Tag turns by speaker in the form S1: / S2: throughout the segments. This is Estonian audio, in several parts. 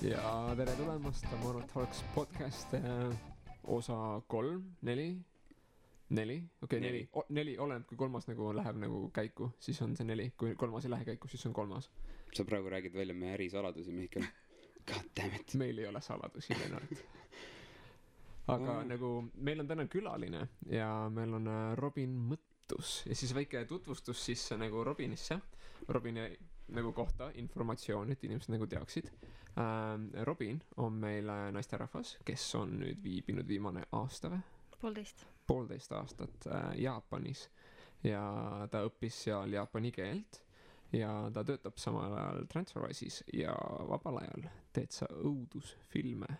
S1: Ja tere tulemast Tamaro Talks podcast osa 3, 4, okei, 4, oleneb kui kolmas nagu läheb nagu käiku, siis on see 4, kui kolmas ei lähe käiku, siis on kolmas.
S2: Sa praegu räägid välja meie ärisaladusi, Mihkel. God damn it.
S1: Meil ei ole saladusi, Lennart. Aga nagu meil on täna külaline ja meil on Robin Mõttus ja siis väike tutvustus siis nagu Robinisse, Robini nagu kohta, informatsioon, et inimesed nagu teaksid. Robin on meil naisterahvas, kes on nüüd viibinud viimane aasta või? 1,5 aastat Jaapanis ja ta õppis seal jaapani keelt ja ta töötab samal ajal Transferwise'is ja vabal ajal teed sa õudusfilme.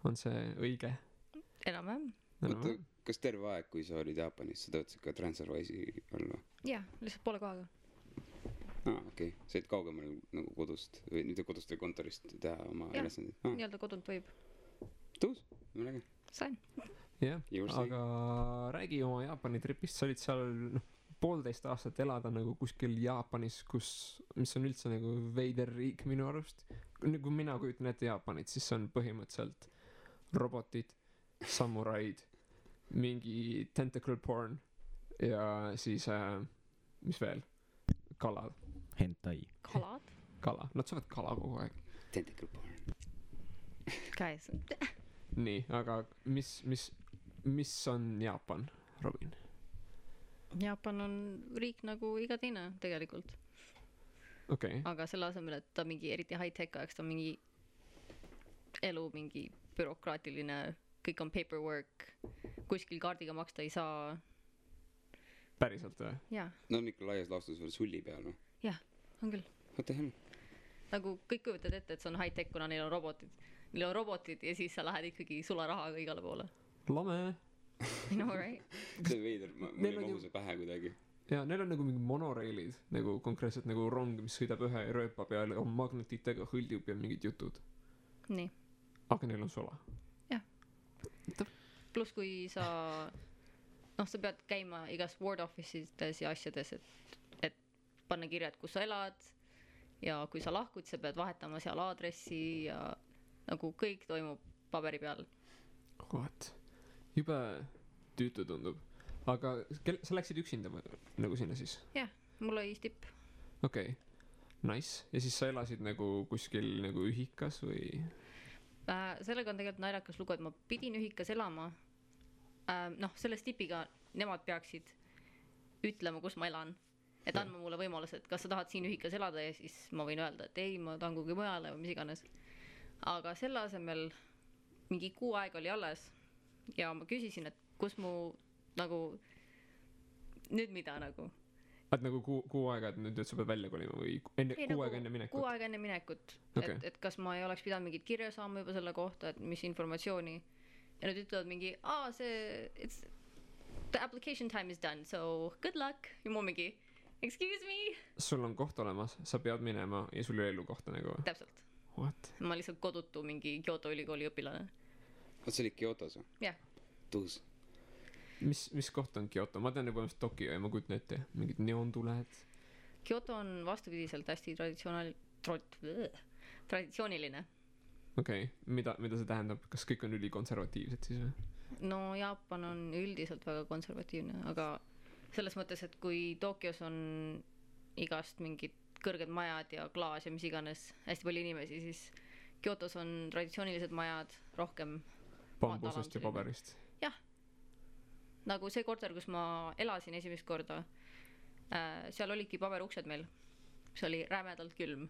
S1: On see õige?
S3: Enam-vähem.
S2: Oota, kas terve aeg, kui sa olid Jaapanis, sa töötasid ka Transferwise'i all või?
S3: Jah, lihtsalt poole kohaga.
S2: Okei. Sa olid kaugemal nagu kodust või mitte kodust või kontorist teha oma ülesandid?
S3: Nii-öelda kodunt võib.
S2: Tõus? Mõnegi?
S3: Sain.
S1: Jah, aga räägi oma Jaapani tripist. Sa olid seal 1,5 aastat elada nagu kuskil Jaapanis, mis on üldse nagu veider riik minu arust. Kui mina kujutan ette Jaapanit, siis on põhimõtteliselt robotid, samuraid, mingi tentacle porn ja siis, mis veel? Kalad.
S4: Hentai.
S3: Kalad?
S1: Kala. Nad saavad kala kogu aeg.
S2: Tentacle porn.
S3: Käes.
S1: Nii, aga mis on Jaapan, Robin?
S3: Jaapan on riik nagu iga teine tegelikult.
S1: Okay.
S3: Aga selle asemel, et ta mingi eriti high-tech ajaks, ta on mingi elu, mingi bürokraatiline, kõik on paperwork, kuskil kaardiga maksta ei saa.
S1: Päriselt või?
S3: Jaa.
S2: No on ikka laias laastus veel sulli peal või?
S3: Jah, on küll.
S2: What the hell?
S3: Nagu kõik kujutad ette, et see on high-tech, kuna neil on robotid. Neil on robotid ja siis sa lähed ikkagi sularahaga igale poole.
S1: Lame.
S3: You know, right?
S2: See veider, mul ei mahu see pähe kuidagi.
S1: Ja neil on nagu mingi monoreilid, nagu konkreetselt nagu rong, mis sõidab ühe rööpa peale, on magnetitega hõldub ja mingid jutud.
S3: Nii.
S1: Aga neil on sola.
S3: Jah. Plus kui sa sa pead käima igas ward office'ides ja asjades, et panna kirjad, kus sa elad ja kui sa lahkud, sa pead vahetama seal aadressi ja nagu kõik toimub paberi peal.
S1: What? Jube tüütu tundub. Aga sa läksid üksinda nagu sinna siis?
S3: Jah, mul oli stipp.
S1: Okei, nice. Ja siis sa elasid nagu kuskil nagu ühikas või?
S3: Sellega on tegelikult naljakas lugu, et ma pidin ühikas elama. Selle stipiga nemad peaksid ütlema, kus ma elan. Et andma mulle võimaluse, et kas sa tahad siin ühikas elada ja siis ma võin öelda, et ei, ma tahan kuhugi mujale või mis iganes. Aga selle asemel mingi 6 aega oli alles ja ma küsisin, et kus mu nagu nüüd mida nagu.
S1: Et nagu 6 aega, et nüüd sa pead välja kolima või 6 aega enne minekut?
S3: 6 aega enne minekut.
S1: Okay.
S3: Et kas ma ei oleks pidanud mingit kirja saama juba selle kohta, et mis informatsiooni. Ja nüüd ütlevad mingi, the application time is done, so good luck. Ja mu mingi, excuse me.
S1: Sul on koht olemas, sa pead minema ja sul ei elu kohta nagu.
S3: Täpselt.
S1: What?
S3: Ma lihtsalt kodutu mingi Kyoto ülikooli õpilane.
S2: See oli Kyotos või?
S3: Jah.
S2: Tõus.
S1: Mis koht on Kyoto? Ma tean juba Tokyo ja ma kujutan ette. Mingid neontuled.
S3: Kyoto on vastupidiselt hästi traditsiooniline.
S1: Okei. Mida see tähendab? Kas kõik on ülikonservatiivsed siis või?
S3: No Jaapan on üldiselt väga konservatiivne, aga selles mõttes, et kui Tokyos on igast mingid kõrged majad ja klaas ja mis iganes hästi palju inimesi, siis Kyotos on traditsioonilised majad rohkem
S1: bambusest ja paberist.
S3: Jah. Nagu see korter, kus ma elasin esimest korda, seal olidki paberuksed meil. See oli rämedalt külm.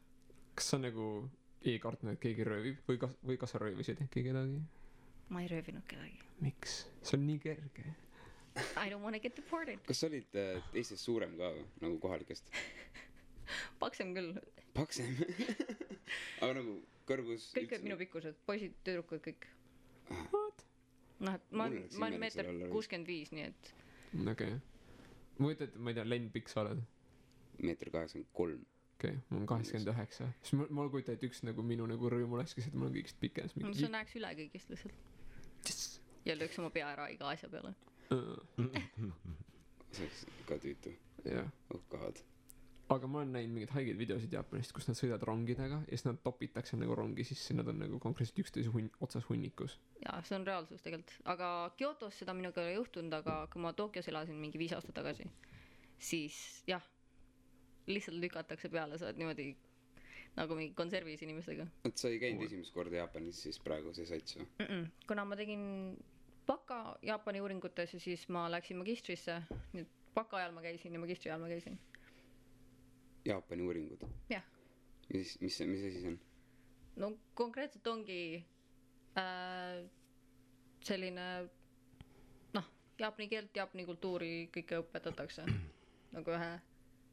S1: Kas sa nagu ei kartnud, et keegi röövib või kas sa röövisid äkki kedagi?
S3: Ma ei röövinud kedagi.
S1: Miks? See on nii kerge.
S3: I don't want to get deported.
S2: Kas sa olid teistest suurem ka nagu kohalikest?
S3: Paksem küll.
S2: Paksem? Aga nagu kõrgus?
S3: Kõik olid minu pikkused, poisid, tüdrukud, kõik.
S1: What?
S3: Ma olen 1,65 m, nii et.
S1: Okei. Ma võtad, ma ei tea, Len pikk sa oled?
S2: 1,83 m.
S1: Okei, ma olen 89. Siis ma kujutan, et üks nagu minu nagu rõõm olekski, et ma olen kõigist pikem.
S3: Sa näeks üle kõigist lihtsalt. Ja lööks oma pea ära iga asja peale.
S2: See oleks ka tüütu.
S1: Jah.
S2: Oh god.
S1: aga ma olen näinud mingeid haigeid videosid Jaapanist, kus nad sõidavad rongidega ja siis nad topitakse nagu rongi sisse, nad on nagu konkreetselt üksteise otsas hunnikus.
S3: jaa, see on reaalsus tegelikult, aga Kyotos seda minuga ei ole juhtunud, aga kui ma Tokyos elasin mingi 5 aastat tagasi, siis jah, lihtsalt lükatakse peale, sa oled niimoodi nagu mingi konservis inimestega.
S2: et sa ei käinud esimest korda Jaapanis siis praegu see sats või?
S3: Kuna ma tegin baka Jaapani uuringutes ja siis ma läksin magistrisse, nüüd baka ajal ma käisin ja magistri ajal ma käisin.
S2: Jaapani uuringud?
S3: jah.
S2: mis asi see on?
S3: No konkreetselt ongi selline noh, jaapani keelt, jaapani kultuuri kõike õpetatakse nagu ühe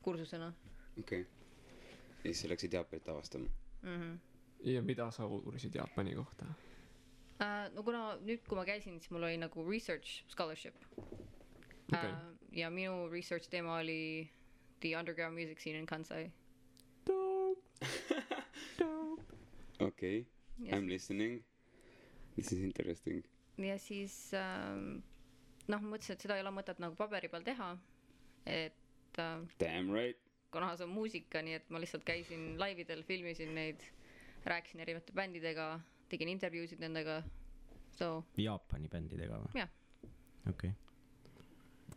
S3: kursusena.
S2: okei. ja siis sa läksid Jaapanit avastama?
S1: Ja mida sa uurisid Jaapani kohta?
S3: No kuna nüüd, kui ma käisin, siis mul oli nagu research scholarship.
S1: Okay.
S3: Ja minu research teema oli the underground music scene in Kansai.
S1: Dope.
S2: okei. I'm listening. This is interesting.
S3: Ja siis noh, mõtlesin, et seda ei ole mõtet nagu paberi peal teha, et
S2: Damn right.
S3: kuna see on muusika, nii et ma lihtsalt käisin laividel, filmisin neid, rääkisin erinevate bändidega, tegin intervjuusid nendega. So
S4: Jaapani bändidega või?
S3: jah.
S4: okei.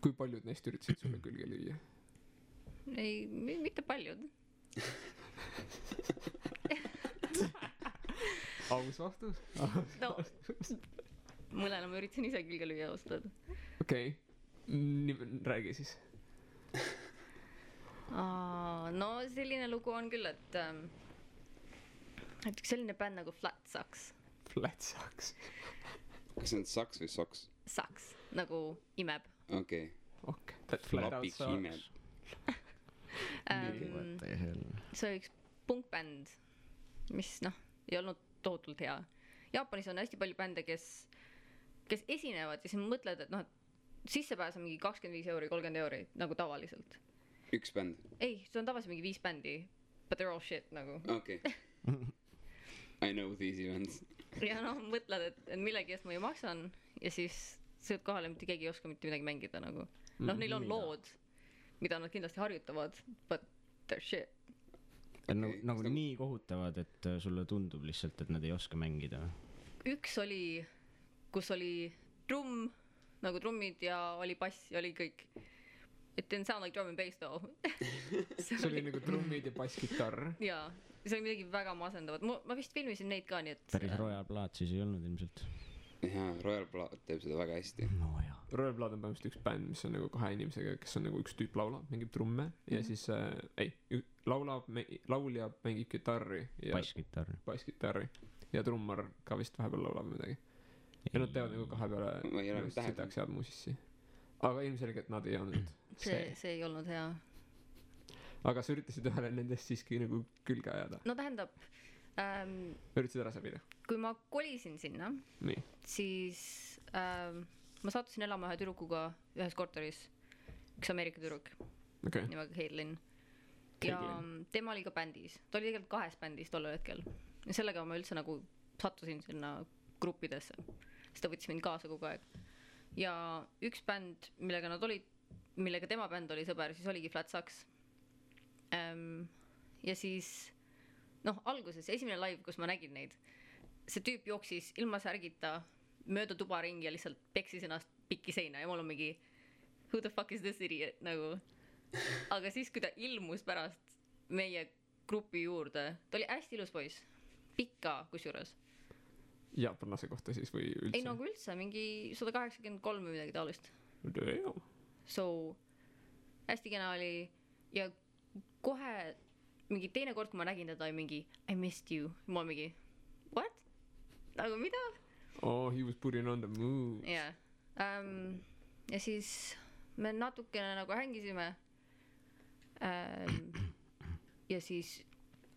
S1: Kui paljud neist üritasid sulle külge lüüa?
S3: Ei, mitte paljud.
S1: Aus vastus?
S3: No, mõnele ma üritasin ise külge lüüa austada.
S1: Okei. Räägi siis.
S3: No selline lugu on küll, et üks selline bänd nagu Flat Sucks.
S1: Flat Sucks.
S2: kas see on saks või soks?
S3: Sucks, nagu imeb.
S2: okei.
S1: Okay. That flat out
S2: Lapik imeb.
S3: See oli üks punkbänd, mis noh, ei olnud tohutult hea. Jaapanis on hästi palju bände, kes esinevad ja siis mõtled, et noh, et sissepääs on mingi 25 euri, 30 euri, nagu tavaliselt.
S2: üks bänd?
S3: Ei, see on tavaliselt mingi 5 bändi, but they're all shit nagu.
S2: okei. I know these events.
S3: Ja noh, mõtled, et millegi eest ma ju maksan ja siis sõid kohale, mitte keegi ei oska mitte midagi mängida nagu. Noh, neil on lood, mida nad kindlasti harjutavad, but they're shit.
S4: Nagu nii kohutavad, et sulle tundub lihtsalt, et nad ei oska mängida.
S3: Üks oli, kus oli trumm, nagu trummid ja oli bass ja oli kõik. It didn't sound like drum and bass though.
S1: See oli nagu trummid ja basskitarr.
S3: Jaa, see oli midagi väga masendavat. Ma vist filmisin neid ka, nii et
S4: päris Royal Blood siis ei olnud ilmselt.
S2: jaa, Royal Blood teeb seda väga hästi.
S4: No jaa.
S1: Royal Blood on põhimõtteliselt üks bänd, mis on nagu 2 inimesega, kes on nagu üks tüüp laulab, mängib trumme ja siis laulja mängib kitarri ja basskitarri ja trummar ka vist vahepeal laulab midagi. Ja nad teevad nagu 2
S2: Ma ei ole
S1: peale
S2: täheldanud.
S1: sitaks head muusissi. Aga ilmselgelt nad ei olnud
S3: see ei olnud hea.
S1: Aga sa üritasid ühele nendest siiski nagu külge ajada.
S3: No tähendab,
S1: Üritasid ära säbida.
S3: kui ma kolisin sinna,
S1: Nii.
S3: siis ma sattusin elama ühe tüdrukuga ühes korteris, üks Ameerika tüdruk
S1: Okei.
S3: nimega Caitlin. Ja
S1: Caitlin.
S3: tema oli ka bändis, ta oli tegelikult 2 bändis tollel hetkel ja sellega ma üldse nagu sattusin sinna gruppidesse, sest ta võttis mind kaasa kogu aeg. Ja üks bänd, millega nad olid, millega tema bänd oli sõber, siis oligi Flat Sucks. Ja siis noh, alguses esimene live, kus ma nägin neid, see tüüp jooksis ilma särgita mööda tuba ringi ja lihtsalt peksis ennast pikki seina ja mul on mingi who the fuck is this idiot nagu. Aga siis, kui ta ilmus pärast meie grupi juurde, ta oli hästi ilus poiss, pikka kusjuures.
S1: Jaapanlase kohta siis või üldse?
S3: Ei nagu üldse, mingi 183 või midagi taolist.
S1: Damn.
S3: So hästi kena oli ja kohe mingi teine kord, kui ma nägin teda, oli mingi I missed you. Ma mingi what? Nagu mida?
S1: Oh, he was putting on the move.
S3: Jah. Ja siis me natukene nagu hängisime. Ja siis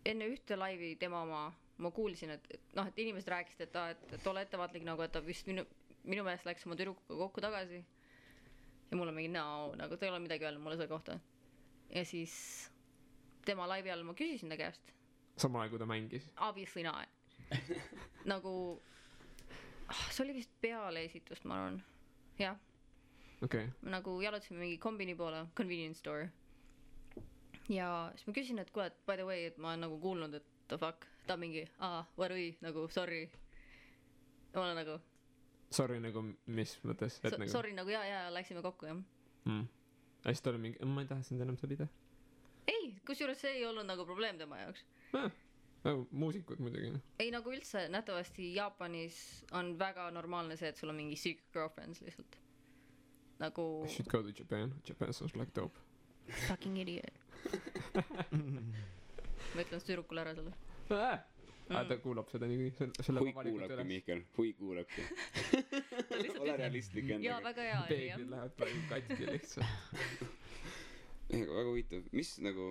S3: enne ühte laivi tema ma kuulsin, et noh, et inimesed rääkisid, et ole ettevaatlik nagu, et ta vist minu meelest läks oma tüdrukuga kokku tagasi. Ja mul on mingi no, nagu ta ei ole midagi öelnud mulle selle kohta. Ja siis tema laivi all ma küsisin ta käest.
S1: Samal ajal, kui ta mängis?
S3: Obviously not. Nagu see oli vist peale esitust, ma arvan. Jah.
S1: Okay.
S3: Nagu jalutasime mingi kombini poole, convenience store. ja siis ma küsin, et kuule, et by the way, et ma olen nagu kuulnud, et the fuck, ta on mingi, varui, nagu sorry. Ja ma olen nagu
S1: Sorry nagu mis mõttes, et nagu
S3: sorry nagu ja läksime kokku, jah.
S1: Ja siis ta oli mingi, ma ei taha sind enam sõlida.
S3: Ei, kusjuures see ei olnud nagu probleem tema jaoks.
S1: Muusikud muidugi.
S3: Ei, nagu üldse nähtavasti Jaapanis on väga normaalne see, et sul on mingi secret girlfriends lihtsalt. Nagu
S1: I should go to Japan. Japan sounds like dope.
S3: fucking idiot. Ma ütlen tüdrukule ära selle.
S1: Ta kuulab seda nii selle
S2: hui kuulabki, Mihkel, hui kuulabki. Ole realistlik
S3: Jaa,
S2: endaga.
S3: väga hea.
S1: Peeglid lähevad praegu katki lihtsalt.
S2: Väga huvitav. Mis nagu,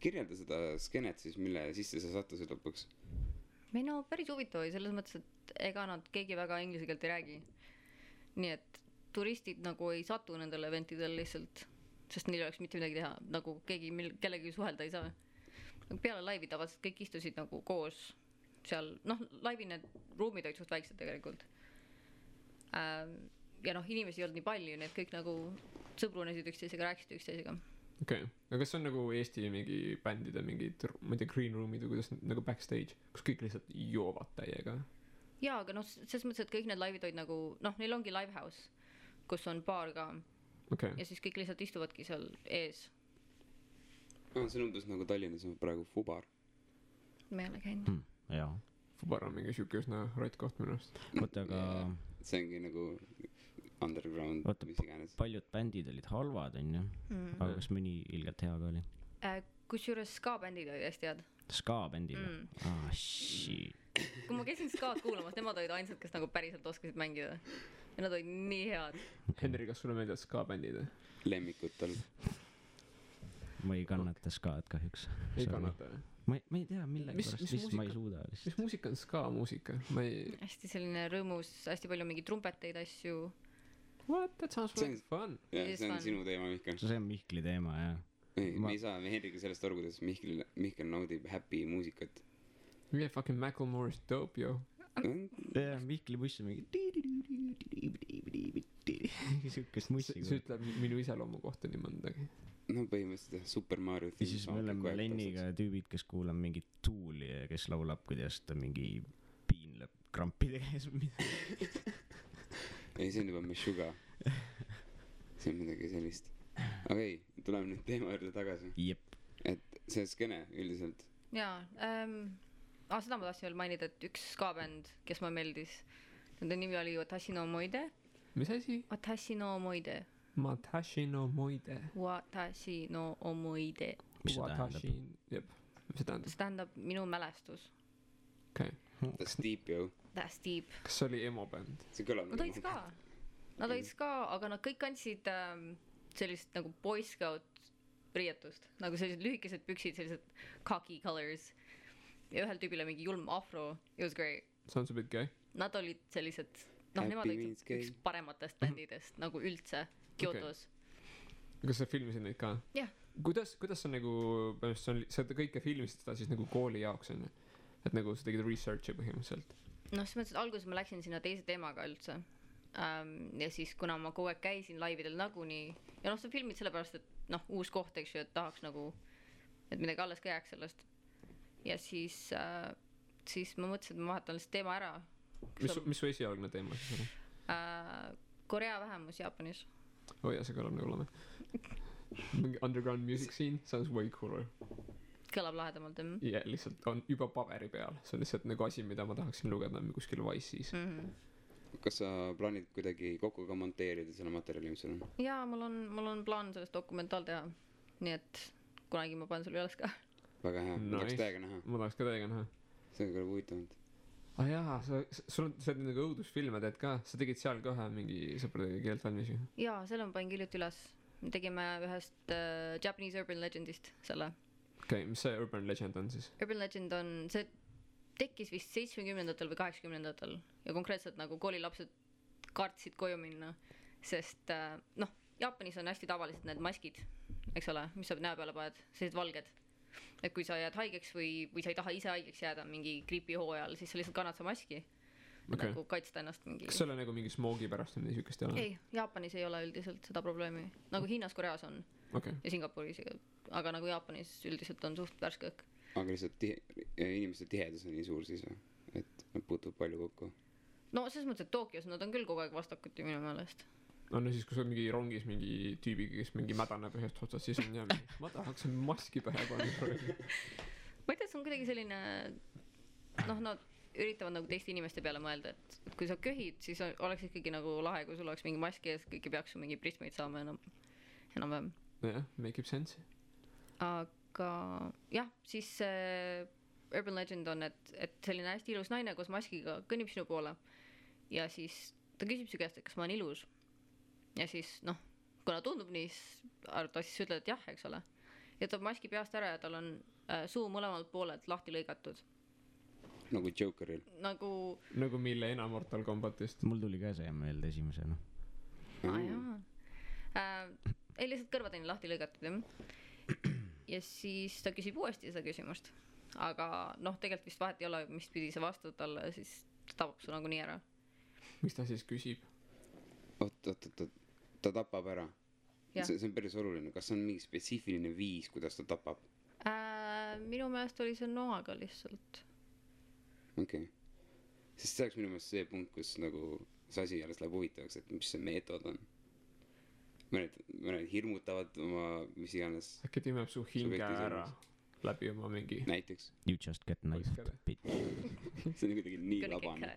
S2: kirjelda seda skenet siis, mille sisse sa sattusid lõpuks?
S3: Või no päris huvitav oli selles mõttes, et ega nad keegi väga inglise keelt ei räägi. Nii et turistid nagu ei satu nendele eventidel lihtsalt, sest neil oleks mitte midagi teha, nagu keegi kellegi suhelda ei saa. Peale laivi tavaliselt kõik istusid nagu koos seal, noh, laivi need ruumid olid suht väiksed tegelikult. Ja noh, inimesi ei olnud nii palju, need kõik nagu sõbrunesid üksteisega, rääkisid üksteisega.
S1: Okei, aga kas on nagu Eesti mingi bändide mingid, ma ei tea, green roomid või kuidas nagu backstage, kus kõik lihtsalt joovad täiega?
S3: Jaa, aga noh, selles mõttes, et kõik need laivid olid nagu, noh, neil ongi livehouse, kus on baar ka. Ja siis kõik lihtsalt istuvadki seal ees.
S2: See on umbes nagu Tallinnas on praegu Fubar.
S3: Ma ei ole käinud.
S4: Jaa.
S1: Fubar on mingi siuke üsna rott koht minu arust.
S4: Oota, aga
S2: see ongi nagu underground, mis iganes.
S4: Paljud bändid olid halvad, on ju. Aga kas mõni ilgelt hea ka oli?
S3: Kusjuures ska-bändid olid hästi head.
S4: Ska-bändid? Shit.
S3: Kui ma käisin ska-d kuulamas, nemad olid ainsad, kes nagu päriselt oskasid mängida. Ja nad olid nii head.
S1: Henri, kas sulle meeldivad ska-bändid?
S2: Lemmikutel.
S4: Ma ei kannata skaad kahjuks.
S1: Ei kannata?
S4: Ma ei tea millega pärast, mis ma ei suuda lihtsalt.
S1: Mis muusika on ska-muusika?
S3: Hästi selline rõõmus, hästi palju mingi trumpeteid asju.
S1: What? That sounds really fun.
S2: See on sinu teema, Mihkel.
S4: See on Mihkli teema, jah.
S2: Me ei saa Henriga sellest aru, kuidas Mihkel naudib happy muusikat.
S1: Yeah, fucking Macklemore is dope, yo.
S4: Ja, Mihkli buss on mingi siukest mussi.
S1: See ütleb minu iseloomu kohta nii mõndagi.
S2: No põhimõtteliselt Super Mario
S4: ja siis me oleme Lenniga tüübid, kes kuulab mingit Tooli ja kes laulab, kuidas ta mingi piinleb krampide käes või midagi.
S2: Ei, see on juba Meshuga. See on midagi sellist. Aga ei, tuleme nüüd teema juurde tagasi.
S4: Jep.
S2: Et see skene üldiselt.
S3: Jaa, seda ma tahtsin veel mainida, et üks ska-bänd, kes ma meeldis, nende nimi oli Watashi no Omoide.
S1: Mis asi?
S3: Watashi no Omoide.
S1: Watashi no Omoide.
S3: Watashi no Omoide.
S4: Mis see tähendab?
S1: Jep, mis see tähendab?
S3: See tähendab minu mälestus.
S1: Okei.
S2: That's deep, yo.
S3: That's deep.
S1: Kas see oli emo-bänd?
S2: See kõlab
S3: Nad olid ska. Nad olid ska, aga nad kõik kandsid sellist nagu Boy Scout riietust. Nagu sellised lühikesed püksid, sellised khaki colors. Ja ühel tüübile mingi julm afro. It was great.
S1: Sounds a bit gay.
S3: Nad olid sellised, nemad olid üks parematest bändidest nagu üldse Kyotos.
S1: Kas sa filmisid neid ka?
S3: Jah.
S1: Kuidas sa nagu, sa kõike filmisid seda siis nagu kooli jaoks on? Et nagu sa tegid researchi põhimõtteliselt?
S3: No selles mõttes, et alguses ma läksin sinna teise teemaga üldse. Ja siis kuna ma kogu aeg käisin laividel nagunii ja noh, sa filmid sellepärast, et noh, uus koht, eks ju, et tahaks nagu, et midagi alles ka jääks sellest. Ja siis ma mõtlesin, et ma vahetan lihtsalt teema ära.
S1: Mis su esialgne teema siis oli?
S3: Korea vähemus Jaapanis.
S1: Ja see kõlab nagu oleme. Underground music scene sounds way cooler.
S3: Kõlab lahedamalt,
S1: jah. Ja lihtsalt on juba paberi peal. See on lihtsalt nagu asi, mida ma tahaksin lugeda kuskil Vice'is.
S2: Kas sa plaanid kuidagi kokku ka monteerida selle materjali, mis sul on?
S3: Jaa, mul on plaan sellest dokumentaal teha. Nii et kunagi ma panen sulle üles ka.
S2: Väga hea, ma tahaks täiega näha.
S1: Ma tahaks ka täiega näha.
S2: See on küll huvitavalt.
S1: Jaa, sul on nagu õudusfilme teed ka. Sa tegid seal ka ühe mingi sõpradega keelt valmis ju?
S3: Jaa, selle ma panin hiljuti üles. Me tegime ühest Japanese Urban Legendist selle.
S1: Okei, mis see Urban Legend on siis?
S3: Urban Legend on, see tekkis vist 70-ndatel või 80-ndatel ja konkreetselt nagu koolilapsed kartsid koju minna, sest noh, Jaapanis on hästi tavaliselt need maskid, eks ole, mis sa näo peale paned, sellised valged. Et kui sa jääd haigeks või sa ei taha ise haigeks jääda mingi griipihoo ajal, siis sa lihtsalt kannad sa maski nagu kaitsta ennast mingi.
S1: Kas see ole nagu mingi smoogi pärast või niisugust ei ole?
S3: Ei, Jaapanis ei ole üldiselt seda probleemi, nagu Hiinas, Koreas on ja Singapuris aga nagu Jaapanis üldiselt on suht värske õhk.
S2: aga lihtsalt inimeste tihedus on nii suur siis või? Et nad puutuvad palju kokku?
S3: No selles mõttes, et Tokyos nad on küll kogu aeg vastakuti minu meelest.
S1: no siis kui sa oled mingi rongis mingi tüübiga, kes mingi mädaneb ühest otsast, siis on jah ma tahaks maski pähe panna.
S3: Ma ei tea, see on kuidagi selline noh, nad üritavad nagu teiste inimeste peale mõelda, et kui sa köhid, siis oleks ikkagi nagu lahe, kui sul oleks mingi maski ees, kõik ei peaks su mingi prismeid saama enam-vähem.
S1: jah, make ib sense.
S3: Aga jah, siis urban legend on, et selline hästi ilus naine koos maskiga kõnnib sinu poole ja siis ta küsib su käest, et kas ma olen ilus. Ja siis noh, kuna tundub nii, ta siis ütleb, et jah, eks ole. Ja ta maski peast ära ja tal on suu mõlemalt poolelt lahti lõigatud.
S2: Nagu Jokeril.
S3: Nagu
S1: Milena Mortal Kombatist.
S4: Mul tuli ka see meelde esimesena.
S3: Ei, lihtsalt kõrvad on lahti lõigatud, jah. Ja siis ta küsib uuesti seda küsimust. Aga noh, tegelikult vist vahet ei ole, mis pidi see vastud talle, siis ta tapab su nagu nii ära.
S1: Mis ta siis küsib?
S2: Ta tapab ära. See on päris oluline. Kas on mingi spetsiifiline viis, kuidas ta tapab?
S3: Minu meelest oli see noaga lihtsalt.
S2: Okei. Sest see oleks minu meelest see punkt, kus nagu see asi alles läheb huvitavaks, et mis see meetod on. Mõned hirmutavad oma mis iganes.
S1: Äkki timeb su hinge ära läbi oma mingi...
S2: Näiteks.
S4: You just get knifed.
S2: See on kuidagi nii labane.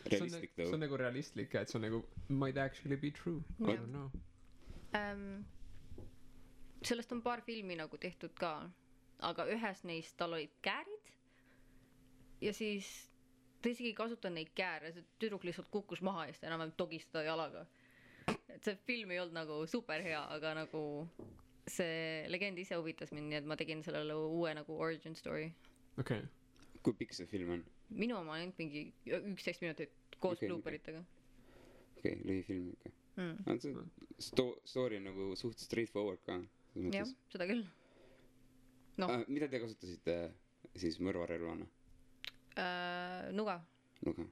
S2: Realistlik tõu.
S1: See on nagu realistlik, et see on nagu might actually be true. I don't know.
S3: Sellest on paar filmi nagu tehtud ka, aga ühes neist tal olid käärid ja siis ta isegi kasutan neid kääre, see tüdruk lihtsalt kukkus maha ja siis ta enam togistada jalaga. Et see film ei olnud nagu super hea, aga nagu see legend ise huvitas mind, nii et ma tegin sellele uue nagu origin story.
S1: Okei.
S2: Kui pikk see film on?
S3: Minu oma ainult mingi 11 minutit koos blooperitega.
S2: Okei, lühifilm ikka. Story on nagu suht straightforward ka.
S3: Jah, seda küll.
S2: Mida te kasutasite siis mõrvarelvana?
S3: Nuga.
S2: Nuga.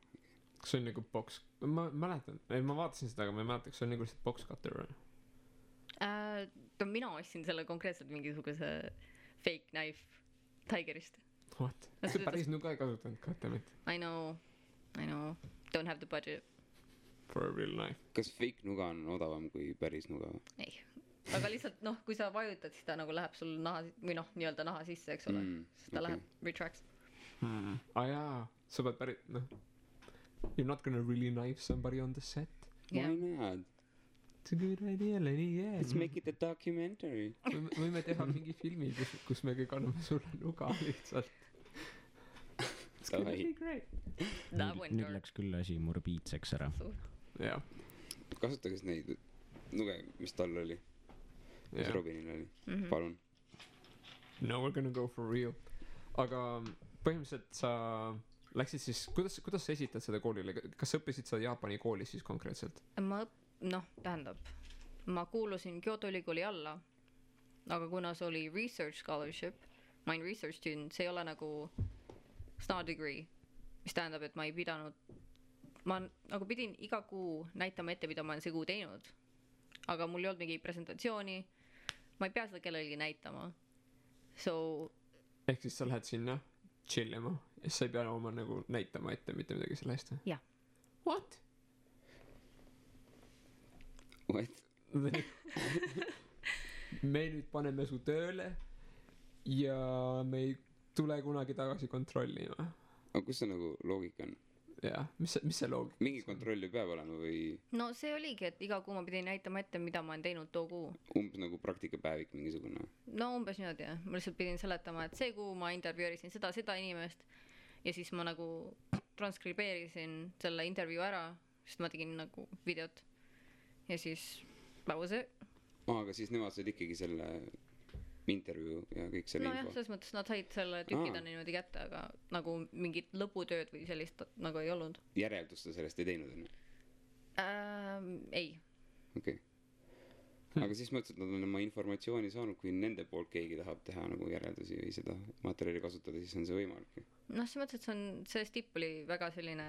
S1: Kas see on nagu box... Ma mäletan, ma vaatasin seda, aga ma ei mäleta, kas see on nagu lihtsalt box cutter või?
S3: Mina ostsin selle konkreetselt mingisuguse fake knife Tigerist.
S1: What? See päris nuga ei kasutanud ka, damit.
S3: I know. Don't have the budget.
S1: For a real knife.
S2: Kas fake nuga on odavam kui päris nuga?
S3: Ei. Aga lihtsalt noh, kui sa vajutad, siis ta nagu läheb sul naha, või noh, nii-öelda naha sisse, eks ole. Siis ta läheb retracts.
S1: Jaa, sa pead päris, noh. You're not gonna really knife somebody on the set.
S2: Why not?
S1: It's a good idea, Lenny, yeah.
S2: Let's make it a documentary.
S1: Võime teha mingi filmi, kus me kõik anname sulle nuga lihtsalt. It's gonna be great.
S4: Nüüd läks küll asi morbiidseks ära.
S1: Jah.
S2: Kasutagis neid nuge, mis tal oli. Mis Robinil oli. Palun.
S1: No, we're gonna go for real. Aga põhimõtteliselt sa läksid siis, kuidas sa esitad seda koolile? Kas sa õppisid seda Jaapani koolis siis konkreetselt?
S3: Ma kuulusin Kyoto ülikooli alla, aga kuna see oli research scholarship, ma olin research student, see ei ole nagu star degree, mis tähendab, et ma ei pidanud, ma nagu pidin iga kuu näitama ette, mida ma olen see kuu teinud, aga mul ei olnud mingi presentatsiooni, ma ei pea seda kellelegi näitama.
S1: Ehk siis sa lähed sinna chillima ja sa ei pea oma nagu näitama ette mitte midagi selle eest?
S3: Jah.
S1: What? Me nüüd paneme su tööle ja me ei tule kunagi tagasi kontrollima.
S2: Aga kus see nagu loogika on?
S1: Jah, mis see loogika?
S2: Mingi kontroll ju peab olema või?
S3: No see oligi, et iga kuu ma pidin näitama ette, mida ma olen teinud too kuu.
S2: Umbes nagu praktikapäevik mingisugune?
S3: No umbes niimoodi, jah. Ma lihtsalt pidin seletama, et see kuu ma intervjuerisin seda inimest ja siis ma nagu transkribeerisin selle intervjuu ära, sest ma tegin nagu videot ja siis that was it.
S2: Aga siis nemad said ikkagi selle intervjuu ja kõik selle
S3: info. No jah, selles mõttes nad said selle tükida niimoodi kätte, aga nagu mingit lõputööd või sellist nagu ei olnud.
S2: Järeldust sellest ei teinud, enne?
S3: Ei.
S2: Okei. Aga siis mõtlesid, et nad on oma informatsiooni saanud, kui nende poolt keegi tahab teha nagu järeldusi või seda materjali kasutada, siis on see võimalik.
S3: Noh, see mõttes, et see stipp oli väga selline,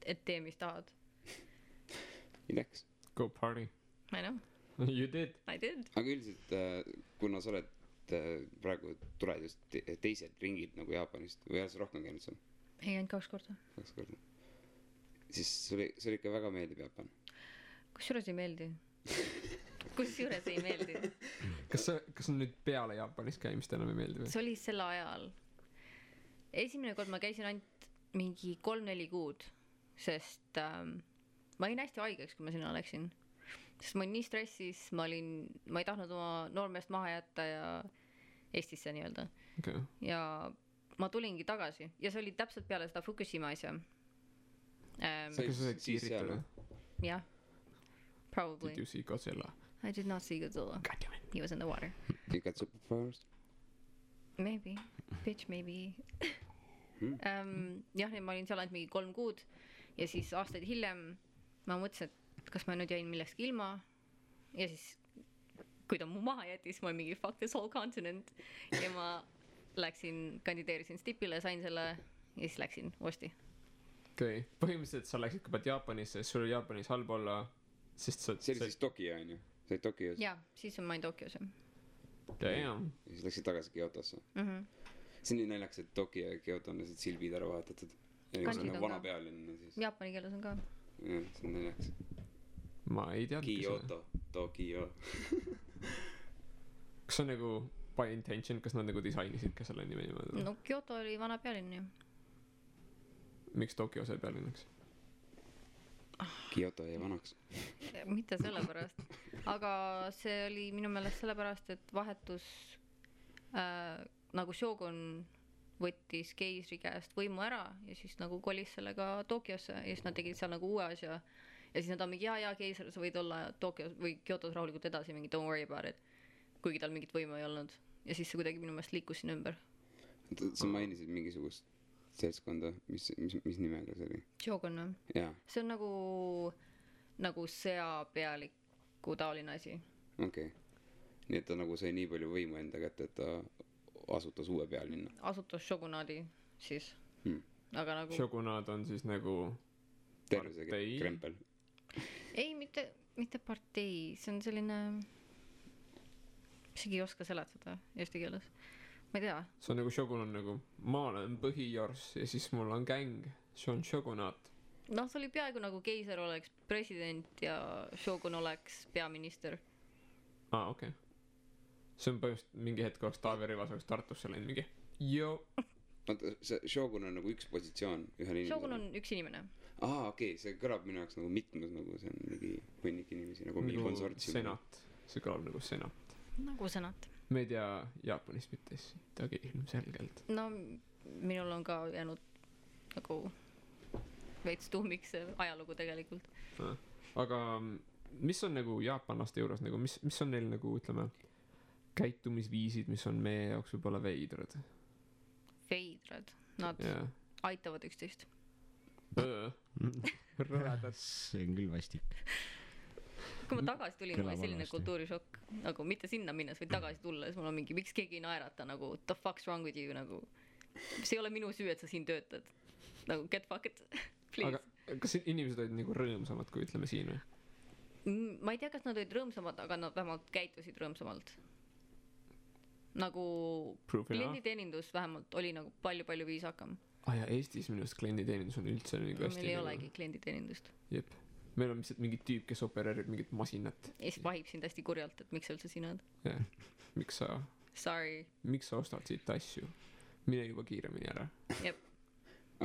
S3: et tee, mis tahad.
S2: Läks.
S1: Go party.
S3: I know.
S1: You did.
S3: I did.
S2: Aga üldiselt, kuna sa oled et praegu tulevad just teised ringid nagu Jaapanist või oled sa rohkem käinud seal
S3: ei ainult 2 korda.
S2: 2 korda siis sulle ikka väga meeldib Jaapan
S3: kusjuures ei meeldi kusjuures ei meeldi
S1: kas on nüüd peale Jaapanis käimist enam ei meeldi või?
S3: see oli sel ajal esimene kord ma käisin ainult mingi 3-4 kuud sest ma olin hästi haigeks kui ma sinna läksin sest ma olin nii stressis ma ei tahtnud oma noormeest maha jätta ja Eestisse nii-öelda
S1: Okay.
S3: ja ma tulingi tagasi ja see oli täpselt peale seda Fukushima asja
S1: Kas sa said kiiritada?
S3: jah probably
S1: Did you see Godzilla?
S3: I did not see Godzilla
S1: God damn it.
S3: he was in the water
S2: you got superpowers
S3: maybe bitch maybe jah ma olin seal ainult mingi 3 kuud ja siis aastaid hiljem ma mõtlesin et kas ma nüüd jäin millestki ilma ja siis kui ta mu maha jättis ma olin mingi fuck this whole continent ja ma kandideerisin stipile sain selle ja siis läksin uuesti
S1: Okay. Põhimõtteliselt sa läksid kõigepealt Jaapanisse, sul oli Jaapanis halb olla, sest sa...
S2: see oli siis Tokyo on ju? sa olid Tokyos?
S3: jaa, siis ma olin Tokyos
S1: Damn.
S2: ja siis läksid tagasi Kyotosse see on nii naljakas, et Tokyo ja Kyoto on lihtsalt silbid ära vahetatud ja
S3: Kanjid
S2: nagu
S3: on
S2: vana
S3: ka.
S2: pealinn siis
S3: jaapani keeles on ka
S2: jah, see on naljakas
S1: Ma ei teadnud
S2: Kyoto, Tokyo
S1: Kas see on nagu by intention, kas nad nagu disainisid ka selle nime niimoodi?
S3: no Kyoto oli vana pealinn ju
S1: Miks Tokyo sai pealinnaks?
S2: Kyoto jäi vanaks
S3: mitte sellepärast aga see oli minu meelest sellepärast et vahetus nagu Shogun võttis keisri käest võimu ära ja siis nagu kolis sellega Tokyosse ja siis nad tegid seal nagu uue asja ja siis nad on mingi jaa keiser sa võid olla Tokyos või Kyotos rahulikult edasi mingi don't worry about it kuigi tal mingit võimu ei olnud ja siis see kuidagi minu meelest liikus siin ümber
S2: sa mainisid mingisugust seltskonda mis nimega see oli?
S3: Shogun või?
S2: jaa
S3: see on nagu sõjapealiku taoline asi
S2: okei nii et ta nagu sai nii palju võimu enda kätte et ta asutas uue pealinna
S3: asutas Shogunaadi siis aga nagu
S1: Shogunaad on siis nagu
S2: terve see
S1: partei?
S2: krempel
S3: ei mitte partei see on selline isegi ei oska seletada eesti keeles ma ei tea
S1: see on nagu Shogun on nagu ma olen põhijors ja siis mul on gäng see on Shogunaat
S3: noh see oli peaaegu nagu keiser oleks president ja Shogun oleks peaminister
S1: okei see on põhimõtteliselt mingi hetk oleks Taavi Rõivas oleks Tartusse läinud mingi joo
S2: oota see Shogun on nagu üks positsioon ühel inimesel
S3: Shogun on üks inimene
S2: okei see kõlab minu jaoks nagu mitmes nagu see on mingi hunnik inimesi nagu mingi konsortsium
S1: senat see kõlab nagu senat
S3: nagu senat
S1: me ei tea Jaapanist mitte sittagi ilmselgelt
S3: no minul on ka jäänud nagu veits tuhmiks see ajalugu tegelikult
S1: aga mis on nagu jaapanlaste juures nagu mis on neil nagu ütleme käitumisviisid mis on meie jaoks võib-olla veidrad
S3: nad
S1: yeah.
S3: aitavad üksteist
S1: rõvedad
S4: see on küll vastik
S3: kui ma tagasi tulin mul oli
S4: Kõlab
S3: selline
S4: halvasti.
S3: kultuurishokk nagu mitte sinna minnes vaid tagasi tulles mul on mingi miks keegi ei naerata nagu the fuck's wrong with you nagu see ei ole minu süü et sa siin töötad nagu get fucked please
S1: aga kas inimesed olid nagu rõõmsamad kui ütleme siin või
S3: ma ei tea kas nad olid rõõmsamad aga nad vähemalt käitusid rõõmsamalt nagu klienditeenindus vähemalt oli nagu palju viisakam
S1: ja Eestis minu arust klienditeenindus on üldse nagu hästi
S3: meil ei olegi klienditeenindust
S1: jep meil on lihtsalt mingi tüüp kes opereerib mingit masinat
S3: ja siis vahib sind hästi kurjalt et miks sa üldse siin oled
S1: jah miks sa ostad siit asju mine juba kiiremini ära
S3: jep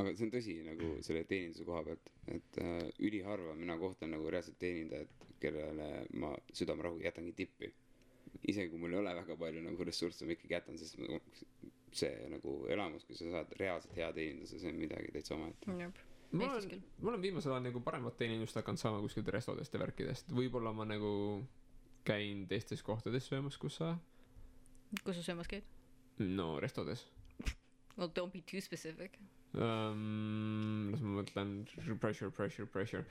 S2: aga see on tõsi nagu selle teeninduse koha pealt et üliharva mina kohtan nagu reaalselt teenindajat kellele ma südamerahuga jätangi tippi isegi kui mul ei ole väga palju nagu ressursse ma ikkagi jätan sest see nagu elamus kui sa saad reaalselt hea teeninduse see on midagi täitsa omaette
S3: jep
S1: ma olen viimasel ajal nagu paremat teenindust hakanud saama kuskilt restodest ja värkidest võib-olla ma nagu käin teistes kohtades söömas kus sa
S3: söömas käid
S1: no restodes
S3: well don't be too specific
S1: las ma mõtlen pressure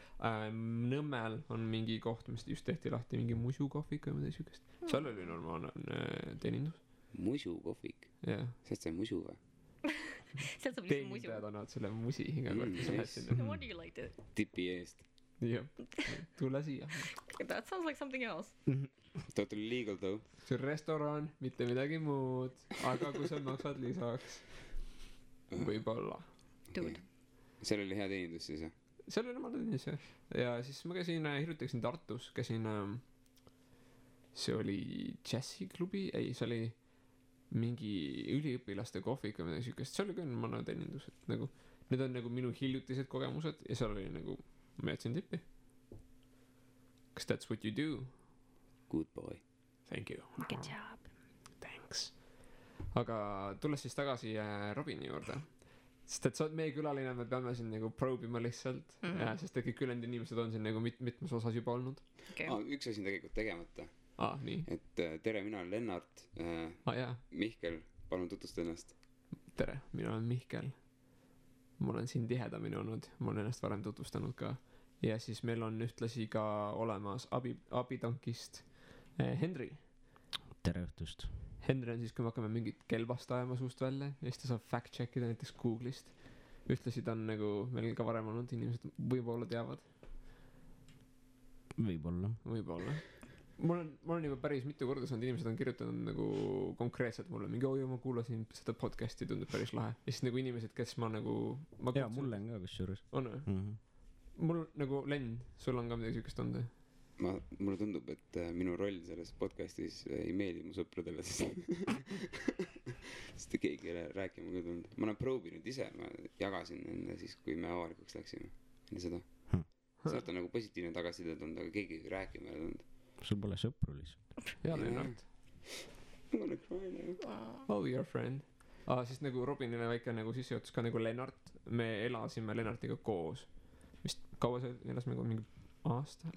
S1: Nõmmel on mingi koht mis just tehti lahti mingi musu kohvik või midagi siukest seal oli normaalne teenindus
S2: musu kohvik
S1: jah
S2: sest see on musu või
S3: sealt saab lihtsalt musu
S1: teenindajad annavad selle musi iga kord kui sa lähed sinna
S3: what do you like to
S2: tipi eest
S1: jah , tule siia .
S3: That sounds like something else .
S2: Totally legal though .
S1: see on restoran , mitte midagi muud , aga kui sa maksad lisaks , võib-olla .
S3: Dude .
S2: seal oli hea teenindus siis jah ?
S1: seal oli omal teenis jah . ja siis ma käisin , hiljuti käisin Tartus , käisin , see oli džässiklubi , ei , see oli mingi üliõpilaste kohvik või midagi siukest , seal oli ka mõne teenindus , et nagu need on nagu minu hiljutised kogemused ja seal oli nagu , ma jätsin tippi . Cause that's what you do .
S2: Good boy .
S1: Thank you .
S3: Good job .
S1: Thanks . aga tulles siis tagasi Robini juurde , sest et sa oled meie külaline , me peame siin nagu probe ima lihtsalt ja sest et kõik ülejäänud inimesed on siin nagu mitmes osas juba olnud .
S3: okei .
S2: üks asi on tegelikult tegemata ,
S1: nii .
S2: et tere , mina olen Lennart .
S1: Jaa ,
S2: Mihkel , palun tutvusta ennast .
S1: tere , mina olen Mihkel . ma olen siin tihedamini olnud , ma olen ennast varem tutvustanud ka . ja siis meil on ühtlasi ka olemas abitankist Henri .
S4: tere õhtust .
S1: Henri on siis , kui me hakkame mingit kelbast ajama suust välja ja siis ta saab fact check ida näiteks Google'ist . ühtlasi ta on nagu meil ka varem olnud , inimesed võib-olla teavad ,
S4: võib-olla .
S1: ma olen juba päris mitu korda saanud , inimesed on kirjutanud nagu konkreetselt mulle mingi oi , ma kuulasin seda podcast'i , tundub päris lahe . ja siis nagu inimesed , kes ma nagu
S4: jaa , mulle on ka kusjuures .
S1: on või ? mul nagu Len , sul on ka midagi siukest olnud või ?
S2: mulle tundub , et minu roll selles podcast'is ei meeldi mu sõpradele , sest keegi ei ole rääkima ka tulnud . ma olen proovinud ise , ma jagasin enne siis , kui me avalikuks läksime , enne seda . sealt on nagu positiivne tagasiside tulnud , aga keegi rääkima ei tulnud .
S4: sul pole sõpru lihtsalt .
S1: jaa , Lennart .
S2: ma olen crying .
S1: Oh , your friend . siis nagu Robinile väike nagu sissejuhatus ka nagu Lennart , me elasime Lennartiga koos . vist kaua see elasime koos , mingi aasta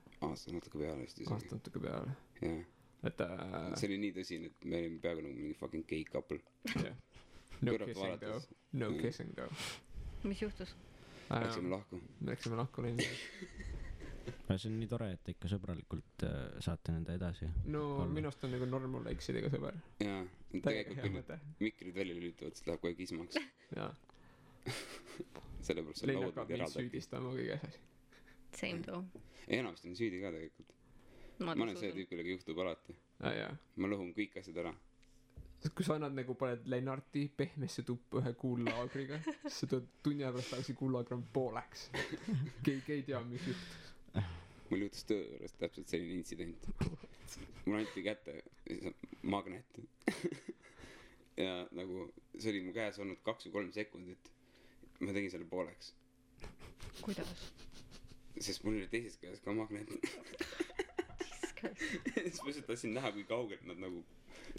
S2: natuke peale vist isegi .
S1: natuke peale .
S2: jah ,
S1: et
S2: see oli nii tõsine , et me olime peaaegu nagu mingi fucking gay couple .
S1: jah . No
S2: kõrvalt
S1: kissing though
S2: vaadates. ,
S1: no kissing though .
S3: mis juhtus ?
S2: Läksime lahku .
S1: me läksime lahku linna .
S4: see on nii tore , et te ikka sõbralikult saate nende edasi .
S1: no
S4: Olla.
S1: minu arust on nagu normal eksidega sõber .
S2: jaa ,
S1: täiega
S2: tegelikult
S1: hea
S2: kui nüüd
S1: mõte .
S2: mikrid välja lülitavad , siis läheb kohe kismaks .
S1: jaa .
S2: sellepärast see
S1: Len
S2: laud
S1: hakkab
S2: nüüd
S1: mind
S2: eraldab .
S1: süüdistama kõiges asjas .
S3: Same though .
S2: enamasti on süüdi ka tegelikult . ma olen see tüüp , kellega juhtub alati .
S1: jaa .
S2: ma lõhun kõik asjad ära .
S1: kui sa annad nagu paned Lennarti pehmesse tuppa ühe kuullaagriga , siis sa tuled tunni aja pärast tagasi kuullaagri on pooleks . keegi ei tea , mis juhtus .
S2: mul juhtus töö juures täpselt selline intsident . mulle anti kätte magnet . ja nagu see oli mu käes olnud 2 või 3 sekundit . ma tegin selle pooleks ,
S3: kuidas ?
S2: sest mul oli teises käes ka magnet . siis ma lihtsalt tahtsin näha , kui kaugelt nad nagu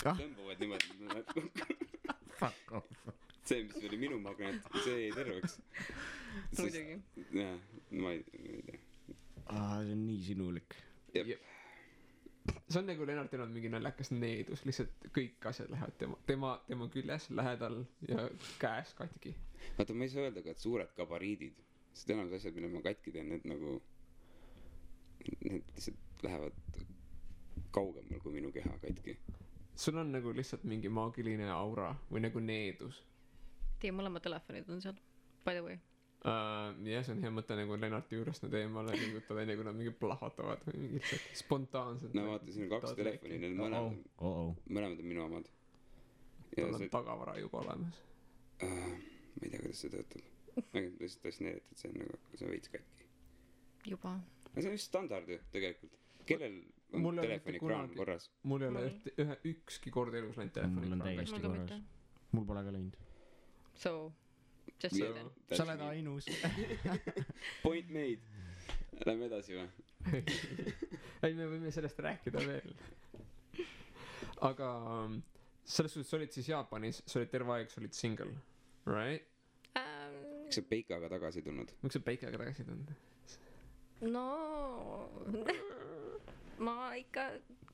S2: tõmbavad niimoodi .
S4: Fuck off .
S2: see , mis oli minu magnet , see jäi terveks .
S3: muidugi .
S2: jah , ma ei tea .
S4: see on nii sinulik .
S1: see on nagu Lennartil on mingi naljakas needus , lihtsalt kõik asjad lähevad tema küljes , lähedal ja käes katki .
S2: vaata , ma ei saa öelda ka , et suured gabariidid , sest enamus asjad , mille ma katki teen , need nagu , need lihtsalt lähevad kaugemal kui minu keha katki .
S1: sul on nagu lihtsalt mingi maagiline aura või nagu needus .
S3: Teie mõlemad telefonid on seal , by the way .
S1: jah , see on hea mõte nagu Lennarti juurest nad eemale liigutada , enne kui nad mingi plahvatavad või mingi lihtsalt spontaanselt .
S2: no vaata , siin on 2 telefoni , need mõlemad on minu omad .
S1: tal on tagavara juba olemas .
S2: ma ei tea , kuidas see töötab . ma lihtsalt tahtsin näidata , et see on nagu , see on veits katki .
S3: juba .
S2: aga see on just standard ju tegelikult . kellel on
S1: Mul ei ole
S2: telefoni
S1: mitte
S2: kraan
S1: kunagi-
S2: korras ?
S1: mul ei ole ükski kord elus läinud
S4: Mul on
S1: telefoni
S4: täiesti
S3: Mul ka
S4: korras
S3: mitte. .
S4: mul pole ka läinud .
S3: So , just say then .
S4: sa oled ainus .
S2: Point made . Lähme edasi või ?
S1: ei , me võime sellest rääkida veel . aga selles suhtes sa olid siis Jaapanis , sa olid terve aeg , sa olid single , right ?
S2: miks sa Peikaga tagasi tulnud ?
S1: miks sa Peikaga tagasi tulnud ?
S3: no ma ikka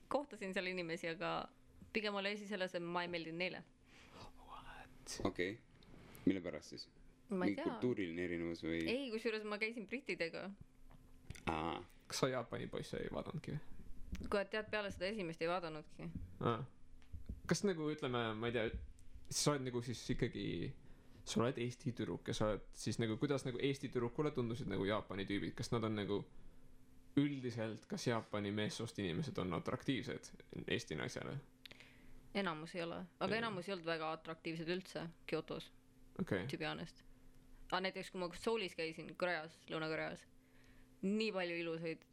S3: kohtasin seal inimesi , aga pigem oli asi selles , et ma ei meeldinud neile .
S2: okei . mille pärast siis ?
S3: ma ei
S2: mingi
S3: tea .
S2: kultuuriline erinevus või ?
S3: ei , kusjuures ma käisin brittidega .
S2: aa ,
S1: kas sa Jaapani poisse ei vaadanudki või ?
S3: kui tead , peale seda esimest ei vaadanudki .
S1: kas nagu ütleme , ma ei tea , sa oled nagu siis ikkagi , sa oled Eesti tüdruk ja sa oled siis nagu , kuidas nagu Eesti tüdrukule tundusid nagu Jaapani tüübid , kas nad on nagu üldiselt kas Jaapani meessoost inimesed on atraktiivsed Eesti naisele?
S3: enamus ei ole, aga enamus ei olnud väga atraktiivsed üldse Kyotos,
S1: okei.
S3: to be honest. aga näiteks kui ma Soulis käisin, Koreas, Lõuna-Koreas, nii palju ilusaid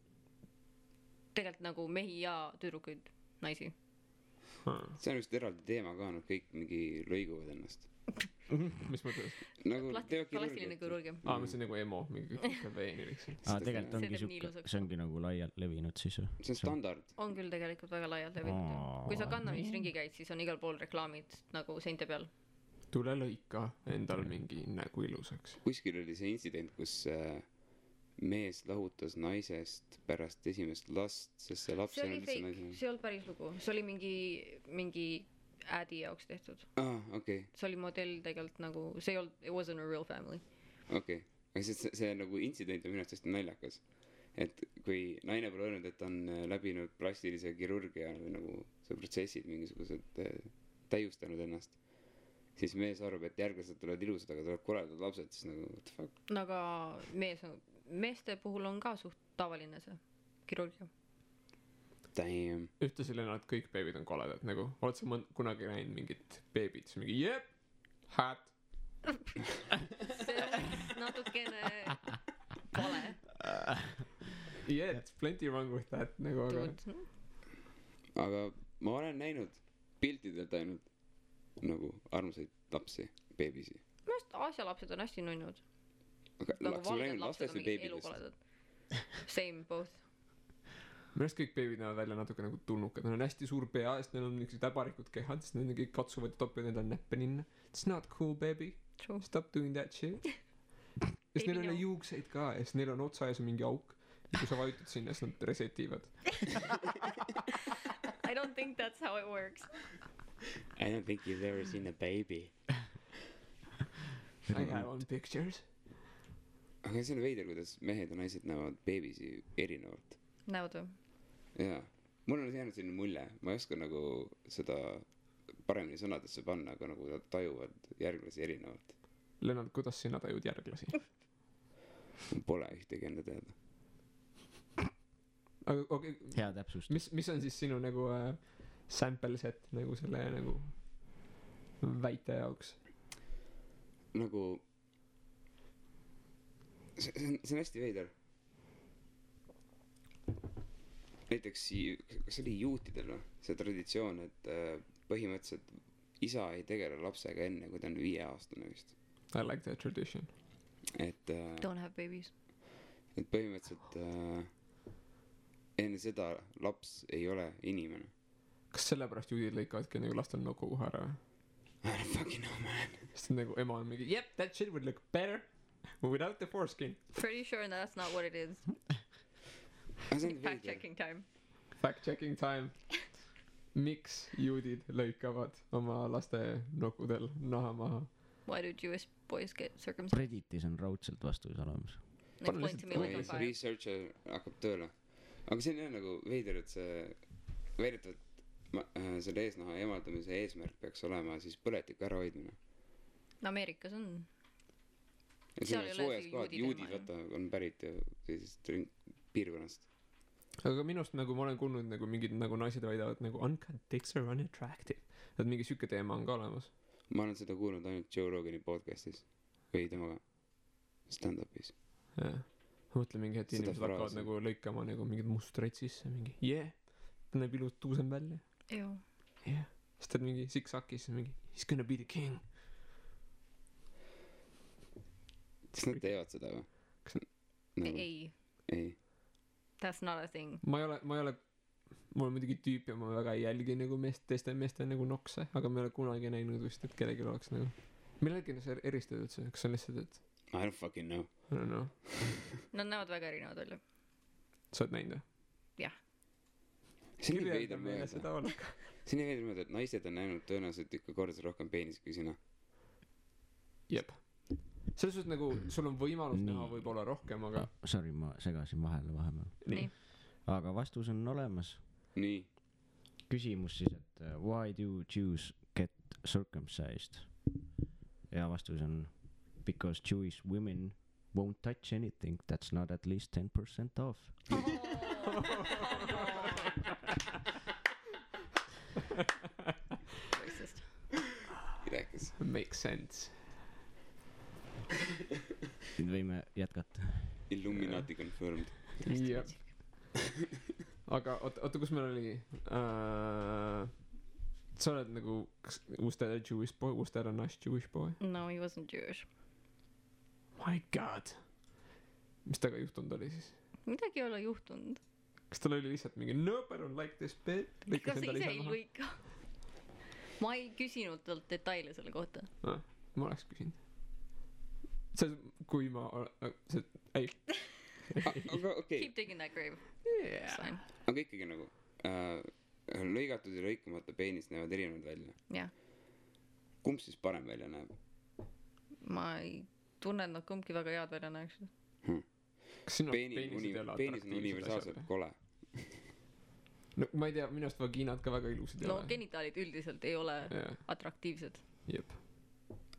S3: tegelikult nagu mehi ja tüdrukuid, naisi.
S2: see on vist eraldi teema ka, nad kõik mingi lõiguvad ennast.
S1: mis mõttes?
S2: nagu
S3: plastiline kirurgia.
S1: ma mõtlesin nagu emo, mingi veeni lihtsalt.
S4: tegelikult ongi
S3: See teeb nii
S4: siuke,
S3: ilusaks.
S4: see ongi nagu laialt levinud siis või?
S2: see on standard.
S3: on küll tegelikult väga laialt levinud. kui sa Gandamis ringi käid, siis on igal pool reklaamid nagu seinte peal.
S1: tule lõika endal mingi nägu ilusaks.
S2: kuskil oli see intsident, kus mees lahutas naisest pärast esimest last, sest see laps
S3: see
S2: ei
S3: oli
S2: olnud üldse
S3: fake,
S2: naisena.
S3: see ei olnud päris lugu, see oli mingi ädi jaoks tehtud.
S2: Okei.
S3: see oli modell tegelikult nagu, see ei olnud, it wasn't a real family.
S2: Okei. Aga see nagu intsident on minu arust hästi naljakas. Et kui naine pole öelnud, et on läbinud plastilise kirurgia või nagu see protsessid mingisugused täiustanud ennast, siis mees arvab, et järglased tulevad ilusad, aga tulevad koledad lapsed, siis nagu what the fuck.
S3: no aga meeste puhul on ka suht tavaline see kirurgia.
S2: Damn.
S1: ühtlasi Lennart, kõik beebid on koledad, nagu oled sa kunagi näinud mingit beebit, siis mingi jep, hat.
S3: see on natukene vale.
S1: Yeah, it's plenty wrong with that, nagu aga.
S2: Aga ma olen näinud piltidelt ainult nagu armsaid lapsi, beebisi.
S3: minu arust Aasia lapsed on hästi nunnud.
S2: Aga
S3: nagu
S2: kas ma
S3: valged
S2: näinud
S3: lapsed
S2: lastest
S3: on
S2: või
S3: mingi
S2: beebidest?
S3: elukoledad. Same, both.
S1: minu arust kõik beebid näevad välja natuke nagu tulnukad, neil on hästi suur pea, sest neil on niisugused äbarikud kehad, sest nad kõik katsuvad ja topivad endale näppe ninna. It's not cool, baby.
S3: True.
S1: Stop doing that shit. ja siis neil ei ole
S3: no.
S1: juukseid ka ja siis neil on otsa ees mingi auk. ja kui sa vajutad sinna, siis nad resetivad.
S3: I don't think that's how it works.
S2: I don't think you've ever seen a baby.
S1: I have on pictures.
S2: Aga see on veider, kuidas mehed ja naised näevad beebisi erinevalt.
S3: näod või?
S2: Jaa. Mul on jäänud selline mulje, ma ei oska nagu seda paremini sõnadesse panna, aga nagu nad tajuvad järglasi erinevalt.
S1: Lennart, kuidas sina tajud järglasi?
S2: Pole ühtegi enda teada.
S1: aga okei,
S4: hea täpsustus.
S1: mis on siis sinu nagu sample set nagu selle nagu väite jaoks?
S2: Nagu see on hästi veider. Näiteks kas oli juutidel või? See traditsioon, et põhimõtteliselt isa ei tegele lapsega enne, kui ta on 5-aastane vist.
S1: I like that tradition.
S2: Et
S3: Don't have babies.
S2: et põhimõtteliselt enne seda laps ei ole inimene.
S1: kas sellepärast juudid lõikavadki nagu lastel noku kohe ära või?
S2: I don't fucking know, man.
S1: sest nagu ema on mingi yep, that shit would look better without the foreskin.
S3: Pretty sure that's not what it is. Fact checking time.
S1: Fact checking time. Miks juudid lõikavad oma laste nokudel naha maha?
S3: Why do Jewish boys get circumcised?
S4: Redditis on raudselt vastus olemas.
S3: Explain to me like on fire.
S2: Researcher hakkab tööle. Aga see on nagu veider, et see väidetavalt selle eesnaha eemaldamise eesmärk peaks olema siis põletiku ärahoidmine.
S3: Ameerikas on.
S2: Ja
S3: Seal
S2: see
S3: ei
S2: on
S3: ole
S2: soojas
S3: see
S2: kohad,
S3: juudide
S2: juudid
S3: ilma,
S2: vaata on pärit ju sellisest piirkonnast.
S1: aga minust nagu ma olen kuulnud nagu mingid nagu naised väidavad nagu uncut dicks are unattractive. et mingi siuke teema on ka olemas.
S2: Ma olen seda kuulnud ainult Joe Rogani podcastis või temaga stand-up'is.
S1: jah. ma mõtlen mingi hetk
S2: Seda
S1: inimesed hakkavad
S2: fraasi.
S1: nagu lõikama nagu mingid mustreid sisse mingi yeah, ta näeb ilus tuusem välja.
S3: Ew.
S1: Yeah. siis ta on mingi siksakis mingi he's gonna be the king.
S2: Kas nad teevad seda või?
S1: Kas
S2: Nagu,
S3: Ei,
S2: ei.
S3: that's not a thing.
S1: ma ei ole mul on muidugi tüüp ja ma väga ei jälgi nagu teiste meeste nagu nokse, aga ma ei ole kunagi näinud vist, et kellelgi oleks nagu millegi sa eristad üldse, kas see on lihtsalt, et
S2: I don't fucking know.
S1: I don't know,
S3: Nad näevad väga erinevad välja.
S1: sa oled näinud või?
S3: Jah.
S2: See on nii
S1: kirjelda
S2: veider
S1: meile
S2: mõelda.
S1: seda oleka.
S2: See on nii veider mõelda, et naised on näinud tõenäoliselt ikka korda rohkem peenist kui sina.
S1: jep, selles suhtes nagu sul on võimalus
S4: Nii.
S1: näha võib-olla rohkem, aga
S4: Sorry, ma segasin vahele vahepeal.
S3: Nii.
S4: aga vastus on olemas.
S2: Nii.
S4: Küsimus siis, et why do Jews get circumcised? Ja vastus on because Jewish women won't touch anything that's not at least 10% off.
S3: Racist.
S2: rääkis .
S1: Makes sense .
S4: nüüd võime jätkata .
S2: Illuminati confirmed .
S1: jah . aga oota , kus meil oli sa oled nagu , was that a Jewish boy , was that a nice Jewish boy ?
S3: No he wasn't Jewish .
S1: My god . mis temaga juhtunud oli siis ?
S3: midagi ei ole juhtunud .
S1: kas tal oli lihtsalt mingi nope , I don't like this bit ?
S3: ega sa ise ei lõika . ma ei küsinud talt detaile selle kohta .
S1: ma oleks küsinud . see , kui ma , see , ei .
S2: aga okei ,
S3: Keep digging that grave .
S1: Yeah.
S3: Fine .
S2: aga ikkagi nagu lõigatud ja lõikamata peenis näevad erinevad välja .
S3: jah .
S2: kumb siis parem välja näeb ?
S3: ma ei tunne , et nad kumbki väga head välja näeksid .
S1: kas sinu
S2: peenis on universaalselt kole .
S1: no ma ei tea , minu arust vagiinad ka väga ilusad ei
S3: no
S1: ole .
S3: genitaalid üldiselt ei ole
S1: jah ,
S3: atraktiivsed .
S1: jep .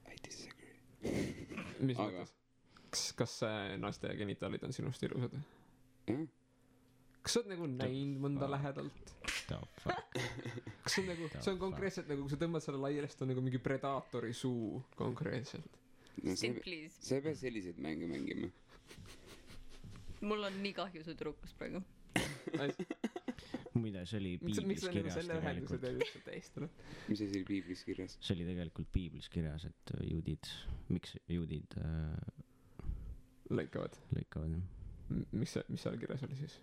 S2: I disagree .
S1: mis
S2: Aga-
S1: mõttes ? kas naiste genitaalid on sinust ilusad ?
S2: jah ,
S1: kas sa oled nagu näinud mõnda lähedalt ?
S4: The fuck .
S1: kas see on nagu , see on konkreetselt nagu , kui sa tõmbad selle laiali , siis ta on nagu mingi predaatori suu konkreetselt .
S2: no
S3: Sim please .
S2: sa ei pea selliseid mänge mängima .
S3: mul on nii kahju su tüdrukust praegu .
S4: muide , see oli
S1: miks
S4: piiblis
S1: sa nagu
S4: kirjas
S1: selle ühenduse
S4: tegelikult .
S1: teed üldse tähistada ?
S2: mis asi oli piiblis kirjas ?
S4: see oli tegelikult piiblis kirjas , et juudid , miks juudid
S1: lõikavad .
S4: lõikavad jah .
S1: mis seal kirjas oli siis ?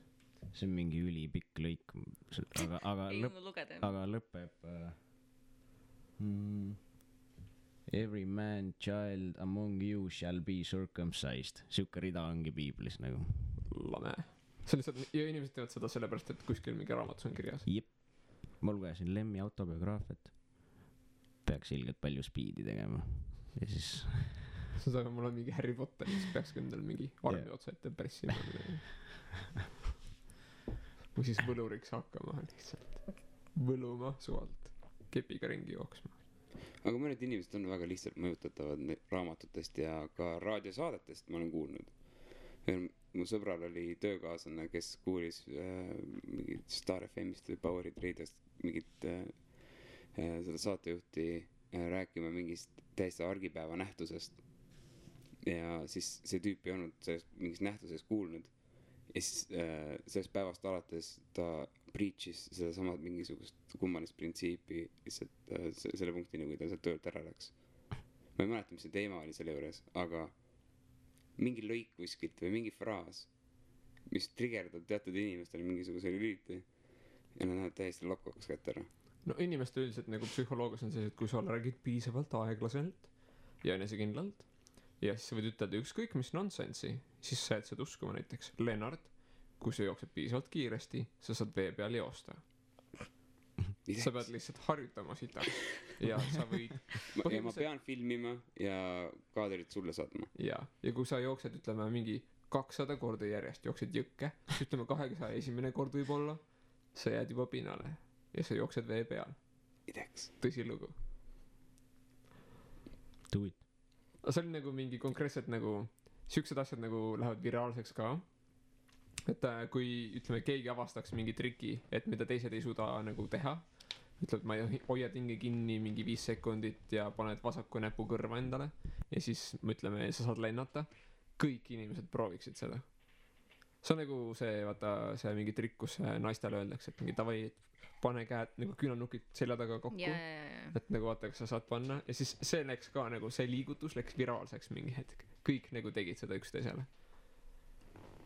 S4: see on mingi ülipikk lõik , aga
S3: ei
S4: lõpp ,
S3: jõudnud lugeda .
S4: aga lõpeb every man child among you shall be circumcised . siuke rida ongi piiblis nagu .
S1: lame . see on lihtsalt , ja inimesed teevad seda sellepärast , et kuskil mingi raamatus on kirjas .
S4: jep , ma lugesin Lemmi autobiograafiat . peaks ilgelt palju speed'i tegema ja siis
S1: see on , mul on mingi Harry Potter , siis peaks ka endal mingi armi
S4: Jah.
S1: otsa ette pressima . või siis võluriks hakkama lihtsalt . võluma suvalt , kepiga ringi jooksma .
S2: aga mõned inimesed on väga lihtsalt mõjutatavad raamatutest ja ka raadiosaadetest , ma olen kuulnud . mu sõbral oli töökaaslane , kes kuulis mingit Star FM-ist või Powerid Radiost mingit seda saatejuhti rääkima mingist täiesti argipäeva nähtusest . ja siis see tüüp ei olnud sellest mingist nähtusest kuulnud . ja siis sellest päevast alates ta preach'is sedasama mingisugust kummalist printsiipi lihtsalt selle punktini , kui ta sealt töölt ära läks . ma ei mäleta , mis see teema oli selle juures , aga mingi lõik kuskilt või mingi fraas , mis trigerdab teatud inimestele mingisuguse lüliti ja nad lähevad täiesti lokaks kätte ära .
S1: no inimeste üldiselt nagu psühholoogias on see , et kui sa räägid piisavalt aeglaselt ja enesekindlalt ja siis sa võid ütelda ükskõik mis nonsensi , siis sa jääd seda uskuma . näiteks Lennart , kui sa jooksed piisavalt kiiresti , sa saad vee peal joosta . sa pead lihtsalt harjutama sitaks ja sa võid
S2: ja ma pean filmima ja kaadrit sulle saatma .
S1: ja kui sa jooksed , ütleme mingi 200 korda järjest jooksed jõkke , siis ütleme 201 kord võib-olla sa jääd juba pinnale ja sa jooksed vee peal .
S2: ideks .
S1: tõsilugu .
S4: do it .
S1: aga see oli nagu mingi konkreetselt nagu siuksed asjad nagu lähevad viraalseks ka . et kui ütleme keegi avastaks mingi triki , et mida teised ei suuda nagu teha , ütled , ma hoiad hinge kinni mingi 5 sekundit ja paned vasaku näpu kõrva endale ja siis ütleme , sa saad lennata , kõik inimesed prooviksid seda . see on nagu see , vaata see mingi trikk , kus naistele öeldakse , et mingi davai , pane käed nagu küünarnukid selja taga kokku .
S3: ja .
S1: et nagu vaata , kas sa saad panna ja siis see läks ka nagu see liigutus läks viraalseks mingi hetk , kõik nagu tegid seda üksteisele .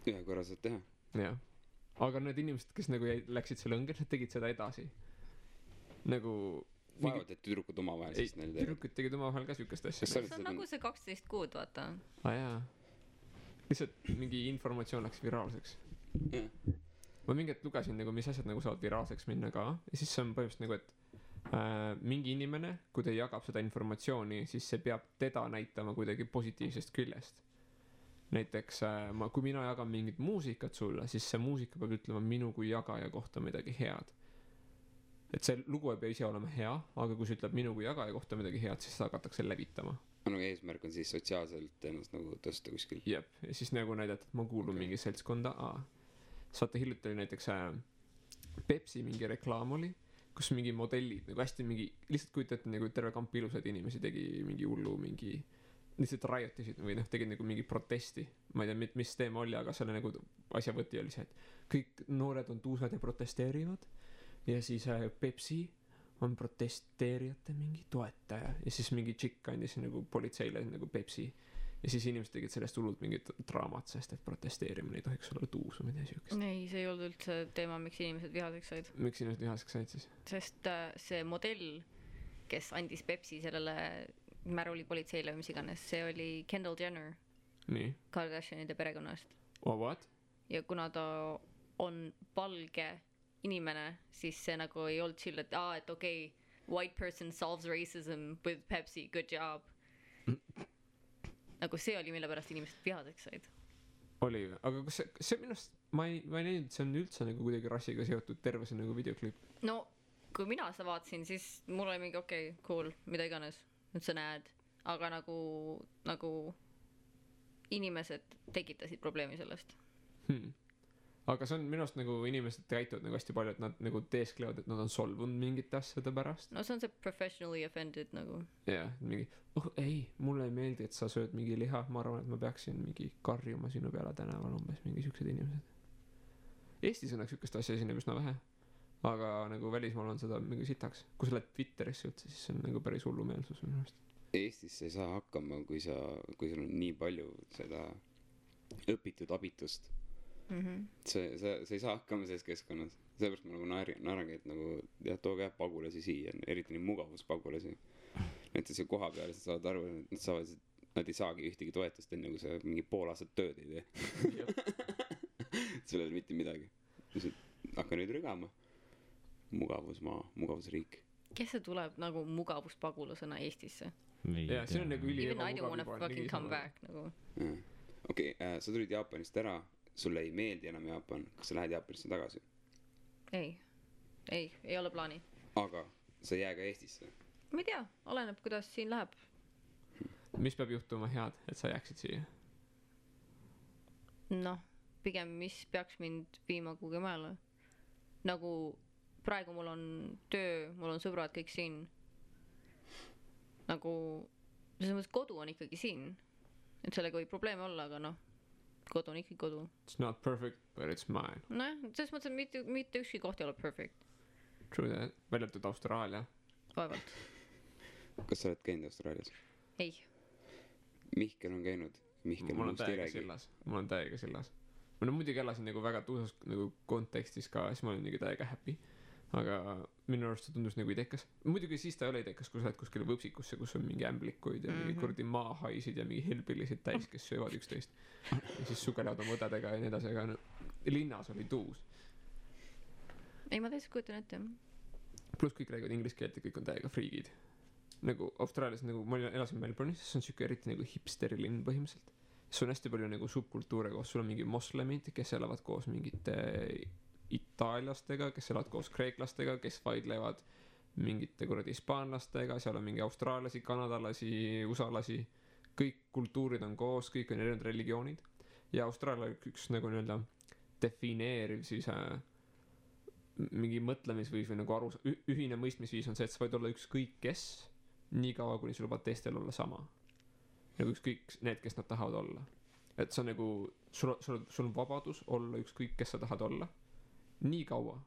S2: ühe korra saad teha .
S1: jah , aga need inimesed , kes nagu läksid selle õnge , nad tegid seda edasi . nagu
S2: vaevalt , et tüdrukud omavahel
S1: ei ,
S2: siis neil teevad .
S1: tüdrukud tegid omavahel ka siukest asja .
S2: Kas sa
S3: see on nagu see 12 kuud , vaata .
S1: aa jaa , lihtsalt mingi informatsioon läks viraalseks .
S2: jah ,
S1: ma mingi hetk lugesin nagu , mis asjad nagu saavad viraalseks minna ka ja siis see on põhimõtteliselt nagu , et mingi inimene , kui ta jagab seda informatsiooni , siis see peab teda näitama kuidagi positiivsest küljest . näiteks kui mina jagan mingit muusikat sulle , siis see muusika peab ütlema minu kui jagaja kohta midagi head . et see lugu ei pea ise olema hea , aga kui see ütleb minu kui jagaja kohta midagi head , siis seda hakatakse levitama .
S2: nagu eesmärk on siis sotsiaalselt ennast nagu tõsta kuskil .
S1: jep , ja siis nagu näidata , et ma kuulun mingi seltskonda A . saate hiljuti oli näiteks Pepsi mingi reklaam oli , kus mingi modellid nagu hästi mingi , lihtsalt kujutate nagu terve kamp ilusaid inimesi tegi mingi hullu mingi , lihtsalt riot'isid või noh , tegid nagu mingi protesti . ma ei tea , mis teema oli , aga selle nagu asja võti oli see , et kõik noored on tuusad ja protesteerivad ja siis Pepsi on protesteerijate mingi toetaja ja siis mingi tšikk andis nagu politseile nagu Pepsi ja siis inimesed tegid sellest hullult mingit draamat , sest et protesteerimine ei tohiks olla tuus või midagi siukest .
S3: ei , see ei olnud üldse teema , miks inimesed vihaseks said ,
S1: miks inimesed vihaseks said siis ?
S3: sest see modell , kes andis Pepsi sellele märulipolitseile või mis iganes , see oli Kendall Jenner
S1: nii ,
S3: Kardashianide perekonnast
S1: oh what ?
S3: ja kuna ta on valge inimene , siis see nagu ei olnud chill , et et okei , white person solves racism with Pepsi , good job . nagu see oli , mille pärast inimesed vihaseks said .
S1: oli , aga kas see minu arust , ma ei näinud , et see on üldse nagu kuidagi rassiga seotud terve see nagu videoklipp .
S3: no kui mina seda vaatasin , siis mul oli mingi okei , cool , mida iganes , nüüd sa näed , aga nagu inimesed tekitasid probleemi sellest .
S1: aga see on minu arust nagu inimesed käituvad nagu hästi palju , et nad nagu teesklevad , et nad on solvunud mingite asjade pärast .
S3: no see on see professionally offended nagu .
S1: jah , mingi , oh ei , mulle ei meeldi , et sa sööd mingi liha , ma arvan , et ma peaksin mingi karjuma sinu peale tänaval , umbes mingi siuksed inimesed . Eestis õnneks siukest asja esineb üsna vähe , aga nagu välismaal on seda mingi sitaks . kui sa lähed Twitterisse üldse , siis see on nagu päris hullumeelsus minu arust .
S2: Eestis sa ei saa hakkama , kui sul on nii palju seda õpitud abitust . sa ei saa hakkama selles keskkonnas . sellepärast ma nagu naerangi , et nagu jah , tooge jah pagulasi siia , eriti neid mugavuspagulasi . näiteks see koha peal , sa saad aru , et nad ei saagi ühtegi toetust enne , kui sa mingi pool aastat tööd ei tee . sul ei ole mitte midagi . hakka nüüd rügama . mugavusmaa , mugavusriik .
S3: kes see tuleb nagu mugavuspagulasena Eestisse ?
S1: jaa , siin on nagu üli
S3: Even I don't wanna fucking come back nagu .
S2: okei , sa tulid Jaapanist ära , sulle ei meeldi enam Jaapan , kas sa lähed Jaapanisse tagasi ?
S3: ei ole plaani .
S2: aga sa ei jää ka Eestisse ?
S3: ma ei tea , oleneb , kuidas siin läheb .
S1: mis peab juhtuma head , et sa jääksid siia ?
S3: noh , pigem mis peaks mind viima kuhugi mujale . nagu praegu mul on töö , mul on sõbrad kõik siin . nagu selles mõttes kodu on ikkagi siin , et sellega võib probleeme olla , aga noh , kodu on ikkagi kodu .
S1: It's not perfect , but it's mine .
S3: nojah , selles mõttes , et mitte ükski koht ei ole perfect ,
S1: True that , välja arvatud Austraalia .
S3: vaevalt .
S2: kas sa oled käinud Austraalias ?
S3: ei ,
S2: Mihkel on käinud . Mihkel
S1: mul on
S2: muust ei
S1: täiega
S2: räägi .
S1: sillas , mul on täiega sillas . ma no muidugi elasin nagu väga tuusas nagu kontekstis ka , siis ma olin nagu täiega happy . aga minu arust see tundus nagu idekas . muidugi siis ta ei ole idekas , kui sa lähed kuskile võpsikusse , kus on mingi ämblikuid ja mingi kuradi maahaisid ja mingi hillbillisid täis , kes söövad üksteist . ja siis sugelevad oma õdedega ja nii edasi , aga no, linnas oli tuus .
S3: ei ma täitsa kujutan ette .
S1: pluss kõik räägivad inglise keelt ja kõik on täiega friigid . nagu Austraalias nagu ma elasin Melbourne'is , see on siuke eriti nagu hipsteri linn põhimõtteliselt . sul on hästi palju nagu subkultuure koos , sul on mingi moslemid , kes elavad koos mingite itaallastega , kes elavad koos kreeklastega , kes vaidlevad mingite kuradi hispaanlastega , seal on mingi austraallasi , kanadalasi , usalasi , kõik kultuurid on koos , kõik on erinevad religioonid ja Austraalia üks nagu nii-öelda defineeriv siis mingi mõtlemisviis või nagu ühine mõistmisviis on see , et sa võid olla ükskõik kes , nii kaua kuni sa lubad teistel olla sama . nagu ükskõik need , kes nad tahavad olla . et see on nagu , sul on vabadus olla ükskõik , kes sa tahad olla , nii kaua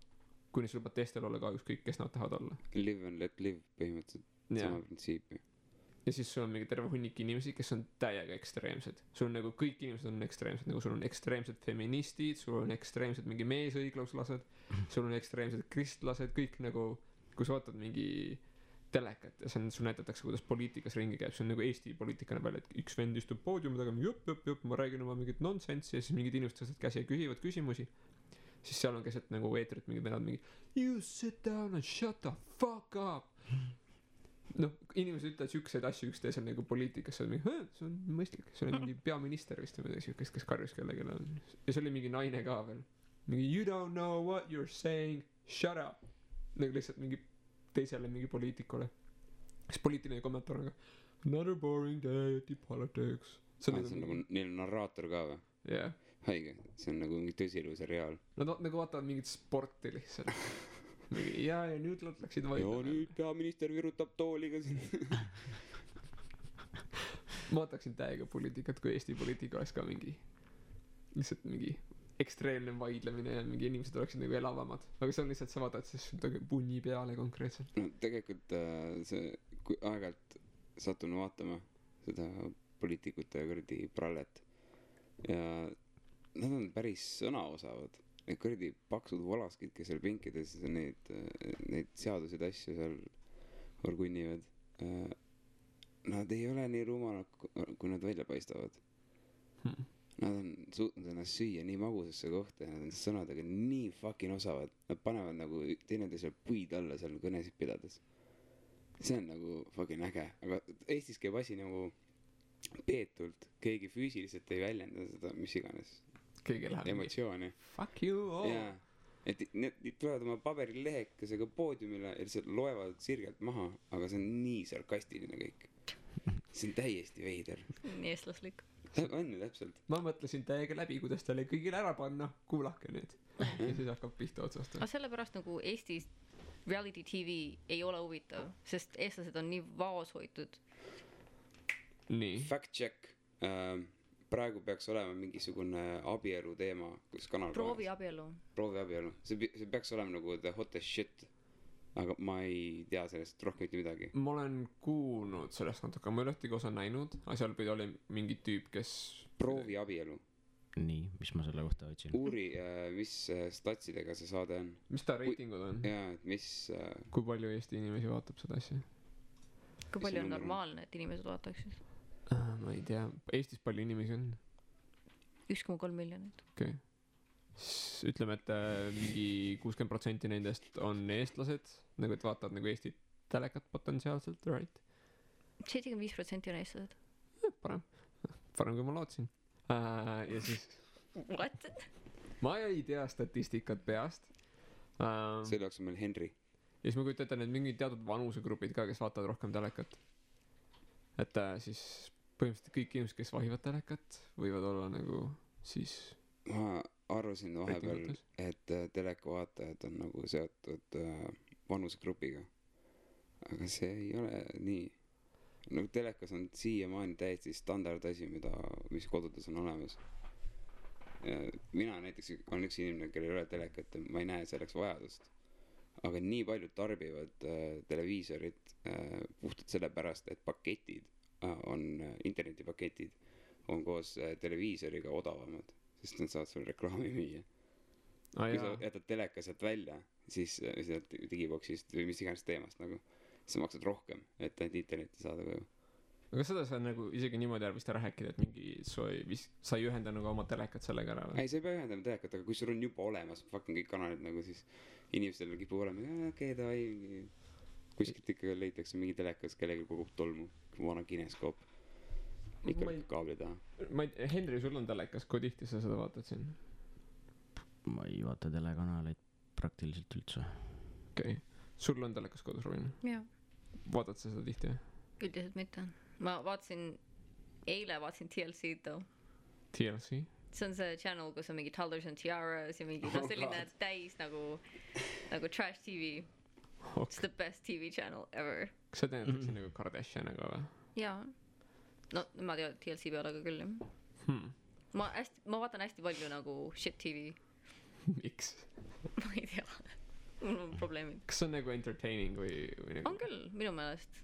S1: kuni sa lubad teistel olla ka ükskõik , kes nad tahavad olla .
S2: Live and let live põhimõtteliselt , sama printsiipi .
S1: ja siis sul on mingi terve hunnik inimesi , kes on täiega ekstreemsed . sul on nagu kõik inimesed on ekstreemsed , nagu sul on ekstreemsed feministid , sul on ekstreemsed mingi meesõigluslased , sul on ekstreemsed kristlased , kõik nagu , kui sa vaatad mingi telekat ja see on , sul näidatakse , kuidas poliitikas ringi käib , see on nagu Eesti poliitika näeb välja , et üks vend istub poodiumi taga , jupp , ma räägin oma mingit nonsense'i ja siis mingid inimesed tõstavad käsi ja küsivad küsimusi . siis seal on keset nagu eetrit mingid venad mingi you sit down and shut the fuck up . noh , inimesed ütlevad siukseid asju üksteisel nagu poliitikas , see on mingi , see on mõistlik , see oli mingi peaminister vist või midagi siukest , kes karjus kellelegi ja see oli mingi naine ka veel . mingi you don't know what you are saying , shut up . nagu lihtsalt mingi teisele mingi poliitikule . siis poliitiline kommentaar on ka Another boring day at the politics.
S2: See on nagu, neil on narraator ka või?
S1: jah.
S2: Haige, see on nagu mingi tõsielu seriaal.
S1: Nad nagu vaatavad mingit sporti lihtsalt. ja nüüd nad läksid
S2: ja
S1: vaidlema.
S2: nüüd peaminister virutab tooliga siin.
S1: Ma vataksin täiega poliitikat, kui Eesti poliitika oleks ka mingi lihtsalt mingi ekstreemne vaidlemine ja mingi inimesed oleksid nagu elavamad. Aga see on lihtsalt, sa vaatad siis punni peale konkreetselt.
S2: No tegelikult see, kui aeg-ajalt satun vaatama seda poliitikute kuradi prallet ja nad on päris sõnaosavad. Need kuradi paksud valaskid, kes seal pinkides neid seaduseid asju seal orgunnivad. Nad ei ole nii rumalad, kui nad välja paistavad. Nad on suutnud ennast süüa nii magusasse kohta ja nad on sõnadega nii fucking osavad. Nad panevad nagu teineteisele puid alla seal kõnesid pidades. See on nagu fucking äge. Aga Eestis käib asi nagu peetult. Keegi füüsiliselt ei väljenda seda, mis iganes.
S1: Keegi läheb
S2: emotsiooni.
S1: Fuck you all.
S2: Jaa. Et need tulevad oma paberilehekesega poodiumile ja lihtsalt loevad sirgelt maha, aga see on nii sarkastiline kõik. See on täiesti veider.
S3: Nii eestlaslik.
S2: On ju täpselt.
S1: Ma mõtlesin täiega läbi, kuidas talle kõigile ära panna. Kuulake nüüd. Ja siis hakkab pihta otsast.
S3: Aga sellepärast nagu Eestis reality TV ei ole huvitav, sest eestlased on nii vaos hoitud.
S1: Nii.
S2: Fact check. Praegu peaks olema mingisugune abielu teema, kus kanal
S3: Proovi abielu.
S2: Proovi abielu. See peaks olema nagu the hottest shit. Aga ma ei tea sellest rohkem mitte midagi.
S1: Ma olen kuulnud sellest natuke, ma ei ole ühtegi osa näinud, aga seal pidi oli mingi tüüp, kes
S2: Proovi abielu.
S4: Nii, mis ma selle kohta otsin?
S2: Uuri, mis statsidega see saade on.
S1: Mis ta reitingud on?
S2: Jaa, et mis
S1: kui palju Eesti inimesi vaatab seda asja?
S3: Kui palju on normaalne, et inimesed vaataksid?
S1: Ma ei tea, Eestis palju inimesi on?
S3: 1,3 miljonit.
S1: Okei. Ütleme, et mingi 60% nendest on eestlased, nagu et vaatavad nagu Eesti telekat potentsiaalselt, right?
S3: 75% on eestlased.
S1: Parem kui ma lootsin. Ja siis
S3: What?
S1: ma ei tea statistikat peast.
S2: Selle jaoks on meil Henry.
S1: Ja siis ma kujutan ette, need mingid teatud vanusegrupid ka, kes vaatavad rohkem telekat. Et siis põhimõtteliselt kõik inimesed, kes vahivad telekat, võivad olla nagu siis
S2: ma arvasin vahepeal, et teleka vaatajad on nagu seotud vanusegrupiga. Aga see ei ole nii. Nagu telekas on siiamaani täiesti standard asi, mis kodudes on olemas. Mina näiteks on üks inimene, kellel ei ole telekat ja ma ei näe selleks vajadust. Aga nii paljud tarbivad televiisorit puhtalt sellepärast, et paketid internetipaketid on koos televiisoriga odavamad, sest nad saavad sulle reklaami müüa. Kui sa jätad teleka sealt välja, siis sealt digiboksist või mis iganes teemast nagu, sa maksad rohkem, et ainult internetti saada koju.
S1: aga seda sa nagu isegi niimoodi vist ära rääkida, et mingi sa ei ühenda nagu oma telekat sellega ära või?
S2: Ei, sa ei pea ühendama telekat, aga kui sul on juba olemas fucking kõik kanalid nagu, siis inimestel kipub olema, okei, davai, kuskilt ikka leitakse mingi telekas, kellegi kogub tolmu, vana kineskoop. Ikka kaabli taha.
S1: Henry, sul on telekas, kui tihti sa seda vaatad siin?
S4: Ma ei vaata telekanaleid praktiliselt üldse.
S1: Okei. Sul on telekas kodus, Robin?
S3: Jaa.
S1: Vaatad sa seda tihti?
S3: Üldiselt mitte. Ma eile vaatasin TLC-d too.
S1: TLC?
S3: See on see channel, kus on mingi Toddlers and Tiaras ja mingi selline täis nagu trash TV. It's the best TV channel ever.
S1: Kas sa teenetakse nagu Kardashianiga või?
S3: Jaa. No, ma tean TLC peale ka küll. Ma vaatan hästi palju nagu shit TV.
S1: Miks?
S3: Ma ei tea. Mul on probleemid.
S1: Kas see on nagu entertaining või nagu?
S3: On küll, minu meelest.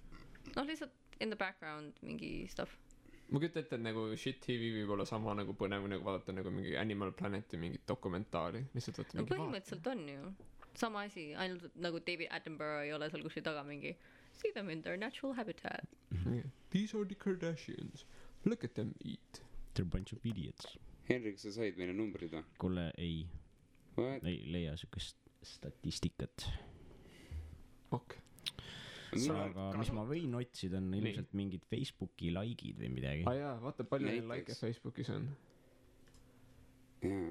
S3: No lihtsalt in the background mingi stuff.
S1: Ma kütta ette, et nagu shit TV võib olla sama nagu põnev, nagu vaadata nagu mingi Animal Planeti mingit dokumentaali. Lihtsalt võtta
S3: no
S1: mingi
S3: põhimõtteliselt on ju. Sama asi, ainult nagu David Attenborough ei ole seal kuskil taga mingi see them in their natural habitat.
S1: These are the Kardashians. Look at them eat.
S4: They're a bunch of idiots.
S2: Henrik, sa said meile numbrid või?
S4: Kuule, ei
S2: What?
S4: leia sükest statistikat.
S1: Ok.
S4: Aga mis ma võin otsida on ilmselt mingid Facebooki likeid või midagi.
S1: Jaa, vaata palju neil like Facebookis on.
S2: Jaa.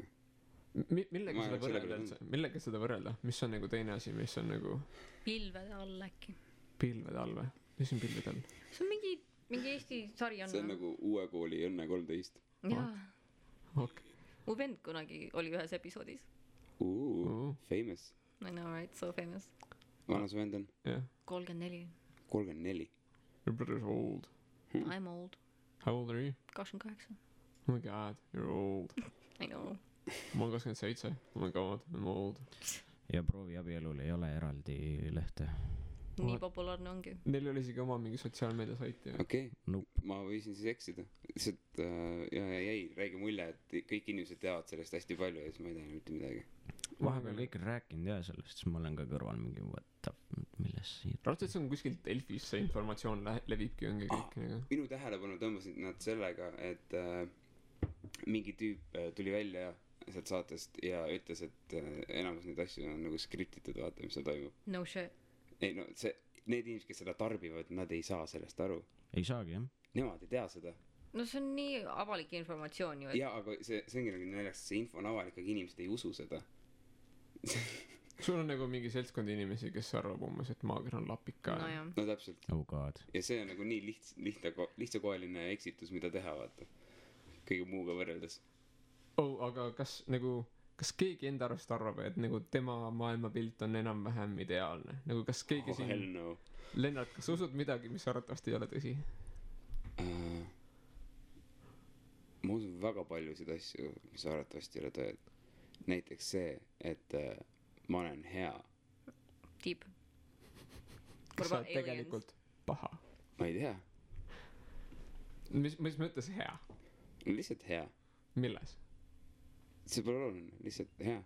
S1: Millega seda võrrelda? Mis on nagu teine asi, mis on nagu
S3: Pilvede all äkki.
S1: Pilvede all või? Mis on pilvede all?
S3: See on mingi Eesti sari on.
S2: see on nagu uue kooli Õnne 13.
S3: jaa.
S1: okei.
S3: mu vend kunagi oli ühes episoodis.
S2: Famous.
S3: I know, right? So famous.
S2: vana su vend on?
S1: jah.
S3: 34.
S2: 34.
S1: Your brother's old.
S3: I'm old.
S1: How old are you?
S3: 28.
S1: Oh my god, you're old.
S3: I know.
S1: ma olen 27. Oh my god, I'm old.
S4: ja prooviabielul ei ole eraldi lehte.
S3: nii populaarne ongi.
S1: Neil oli isegi oma mingi sotsiaalmeedia sait ju.
S2: okei.
S4: Nope.
S2: ma võisin siis eksida. lihtsalt jäi räige mulje, et kõik inimesed teavad sellest hästi palju ja siis ma ei tea mitte midagi.
S4: vahepeal kõik on rääkinud ja sellest, siis ma olen ka kõrval mingi milles siin.
S1: raudselt see on kuskilt Delfis see informatsioon levibki ongi kõik nagu.
S2: minu tähelepanu tõmbasid nad sellega, et mingi tüüp tuli välja sealt saatest ja ütles, et enamus neid asju on nagu skriptitud, vaata mis seal toimub.
S3: No shit.
S2: ei no need inimesed, kes seda tarbivad, nad ei saa sellest aru.
S4: ei saagi jah.
S2: Nemad ei tea seda.
S3: No see on nii avalik informatsioon ju, et
S2: jaa, aga see ongi nagu naljakas, see info on avalik, aga inimesed ei usu seda.
S1: sul on nagu mingi seltskond inimesi, kes arvab umbes, et maager on lapika.
S3: no jah.
S2: no täpselt.
S4: Oh god.
S2: ja see on nagu nii lihtsakoeline eksitus, mida teha, vaata. kõige muuga võrreldes.
S1: aga kas keegi enda arust arvab, et nagu tema maailmapilt on enam-vähem ideaalne? nagu kas keegi siin
S2: hell no.
S1: Lennart, kas usud midagi, mis arvatavasti ei ole tõsi?
S2: ma usun väga paljusid asju, mis arvatavasti ei ole tõed. näiteks see, et ma olen hea.
S3: Deep.
S1: kas sa oled tegelikult paha?
S2: ma ei tea.
S1: mis mõttes hea?
S2: lihtsalt hea.
S1: milles?
S2: see pole oluline, lihtsalt hea.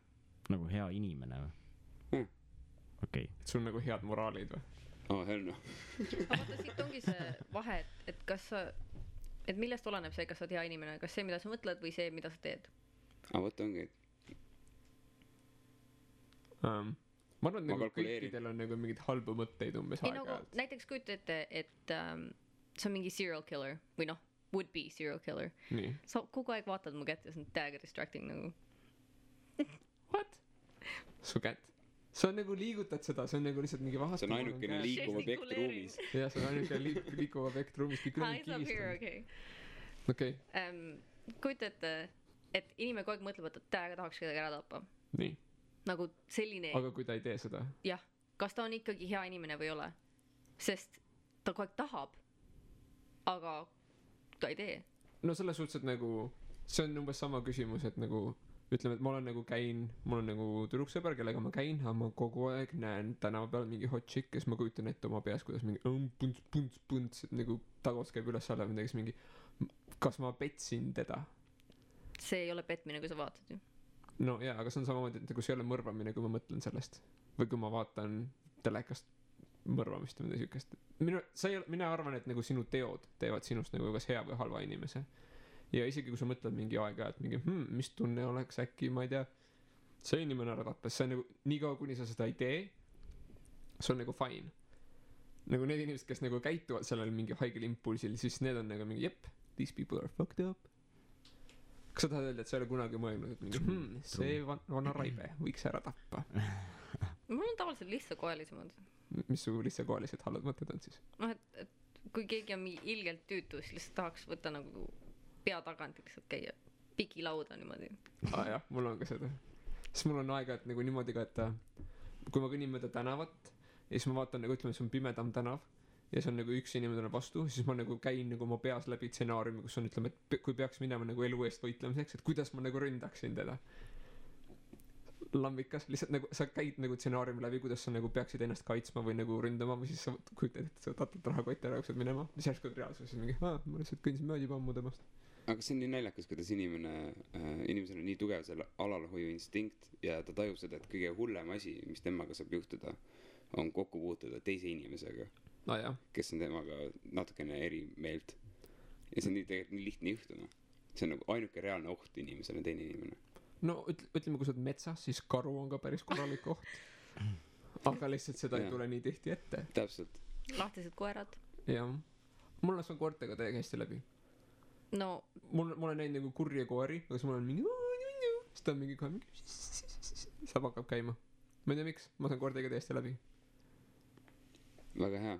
S4: nagu hea inimene või? okei.
S1: sul nagu head moraalid või?
S2: hell no.
S3: aga vaata, siit ongi see vahe, et kas sa, et millest oleneb see, kas sa oled hea inimene, kas see, mida sa mõtled või see, mida sa teed?
S2: vot ongi.
S1: ma arvan, et nagu kõikidel on nagu mingeid halbu mõtteid umbes aeg-ajalt.
S3: Nagu, näiteks kujuta ette, et see on mingi serial killer või noh, would be serial killer. sa kogu aeg vaatad mu kätt ja see on täiega distracting nagu.
S1: What? su kätt? sa nagu liigutad seda, see on nagu lihtsalt mingi vahast.
S2: see on ainukene liikuv objekt ruumis.
S1: jah, see on ainukene liikuv objekt ruumis. okei.
S3: kujuta ette, et inimene kogu aeg mõtleb, et täiega tahaks kedagi ära tappa.
S1: nii.
S3: nagu selline.
S1: aga kui ta ei tee seda?
S3: jah, kas ta on ikkagi hea inimene või ei ole? sest ta kogu aeg tahab, aga ta ei tee.
S1: no selles suhtes, et nagu see on umbes sama küsimus, et nagu ütleme, et ma olen nagu mul on nagu tüdruksõber, kellega ma käin, aga ma kogu aeg näen tänava peal mingi hot chick, kes ma kujutan ette oma peas, kuidas mingi punts, et nagu tagus käib üles-alla midagi, siis mingi kas ma petsin teda? see
S3: ei ole petmine, kui sa vaatad ju.
S1: no jaa, aga see on samamoodi, et nagu see ei ole mõrvamine, kui ma mõtlen sellest. või kui ma vaatan telekast mõrvamist või midagi siukest. mina arvan, et nagu sinu teod teevad sinust nagu kas hea või halva inimese. ja isegi kui sa mõtled mingi aeg-ajalt mingi mis tunne oleks äkki, ma ei tea, see inimene ära tappes, see on nagu niikaua, kuni sa seda ei tee, see on nagu fine. nagu need inimesed, kes nagu käituvad sellel mingi haigel impulsil, siis need on nagu mingi jep, these people are fucked up. kas sa tahad öelda, et sa ei ole kunagi mõelnud, et mingi see vana raibe võiks ära tappa?
S3: mul on tavaliselt lihtsakoelisemad.
S1: mis su lihtsakoelised halvad mõtted on siis?
S3: noh, et kui keegi on mingi ilgelt tüütu, siis lihtsalt tahaks võtta nagu pea tagant lihtsalt käia pikilauda niimoodi. jah,
S1: mul on ka seda. siis mul on aega, et nagu niimoodi ka, et kui ma kõnnin mööda tänavat ja siis ma vaatan nagu ütleme, see on pimedam tänav ja see on nagu üks inimene tuleb vastu, siis ma nagu käin nagu oma peas läbi stsenaariumi, kus on ütleme, et kui peaks minema nagu elu eest võitlemiseks, et kuidas ma nagu ründaksin teda. lambikas, lihtsalt nagu sa käid nagu stsenaariumi läbi, kuidas sa nagu peaksid ennast kaitsma või nagu ründama või siis sa kujutad, et sa tatad rahakotti ära, jooksed minema, siis järsku reaalsuses mingi, ma lihtsalt kõndisin mööda juba ammu temast.
S2: aga see on nii naljakas, kuidas inimesel on nii tugev selle alalhoiu instinkt ja ta tajub seda, et kõige hullem asi, mis temaga saab juhtuda, on kokku puutuda teise inimesega, kes on temaga natukene eri meelt. ja see on tegelikult nii lihtne juhtuma. see on nagu ainuke reaalne oht inimesele, teine inimene.
S1: no ütleme, kui sa oled metsas, siis karu on ka päris korralik oht. aga lihtsalt seda ei tule nii tihti ette.
S2: täpselt.
S3: lahtised koerad.
S1: jah. mul on see koertega täiega hästi läbi.
S3: no
S1: mul on näinud nagu kurje koeri, aga siis mul on mingi siis ta on mingi kohe mingi saab hakkab käima. ma ei tea miks, ma saan koertega täiesti läbi.
S2: väga hea.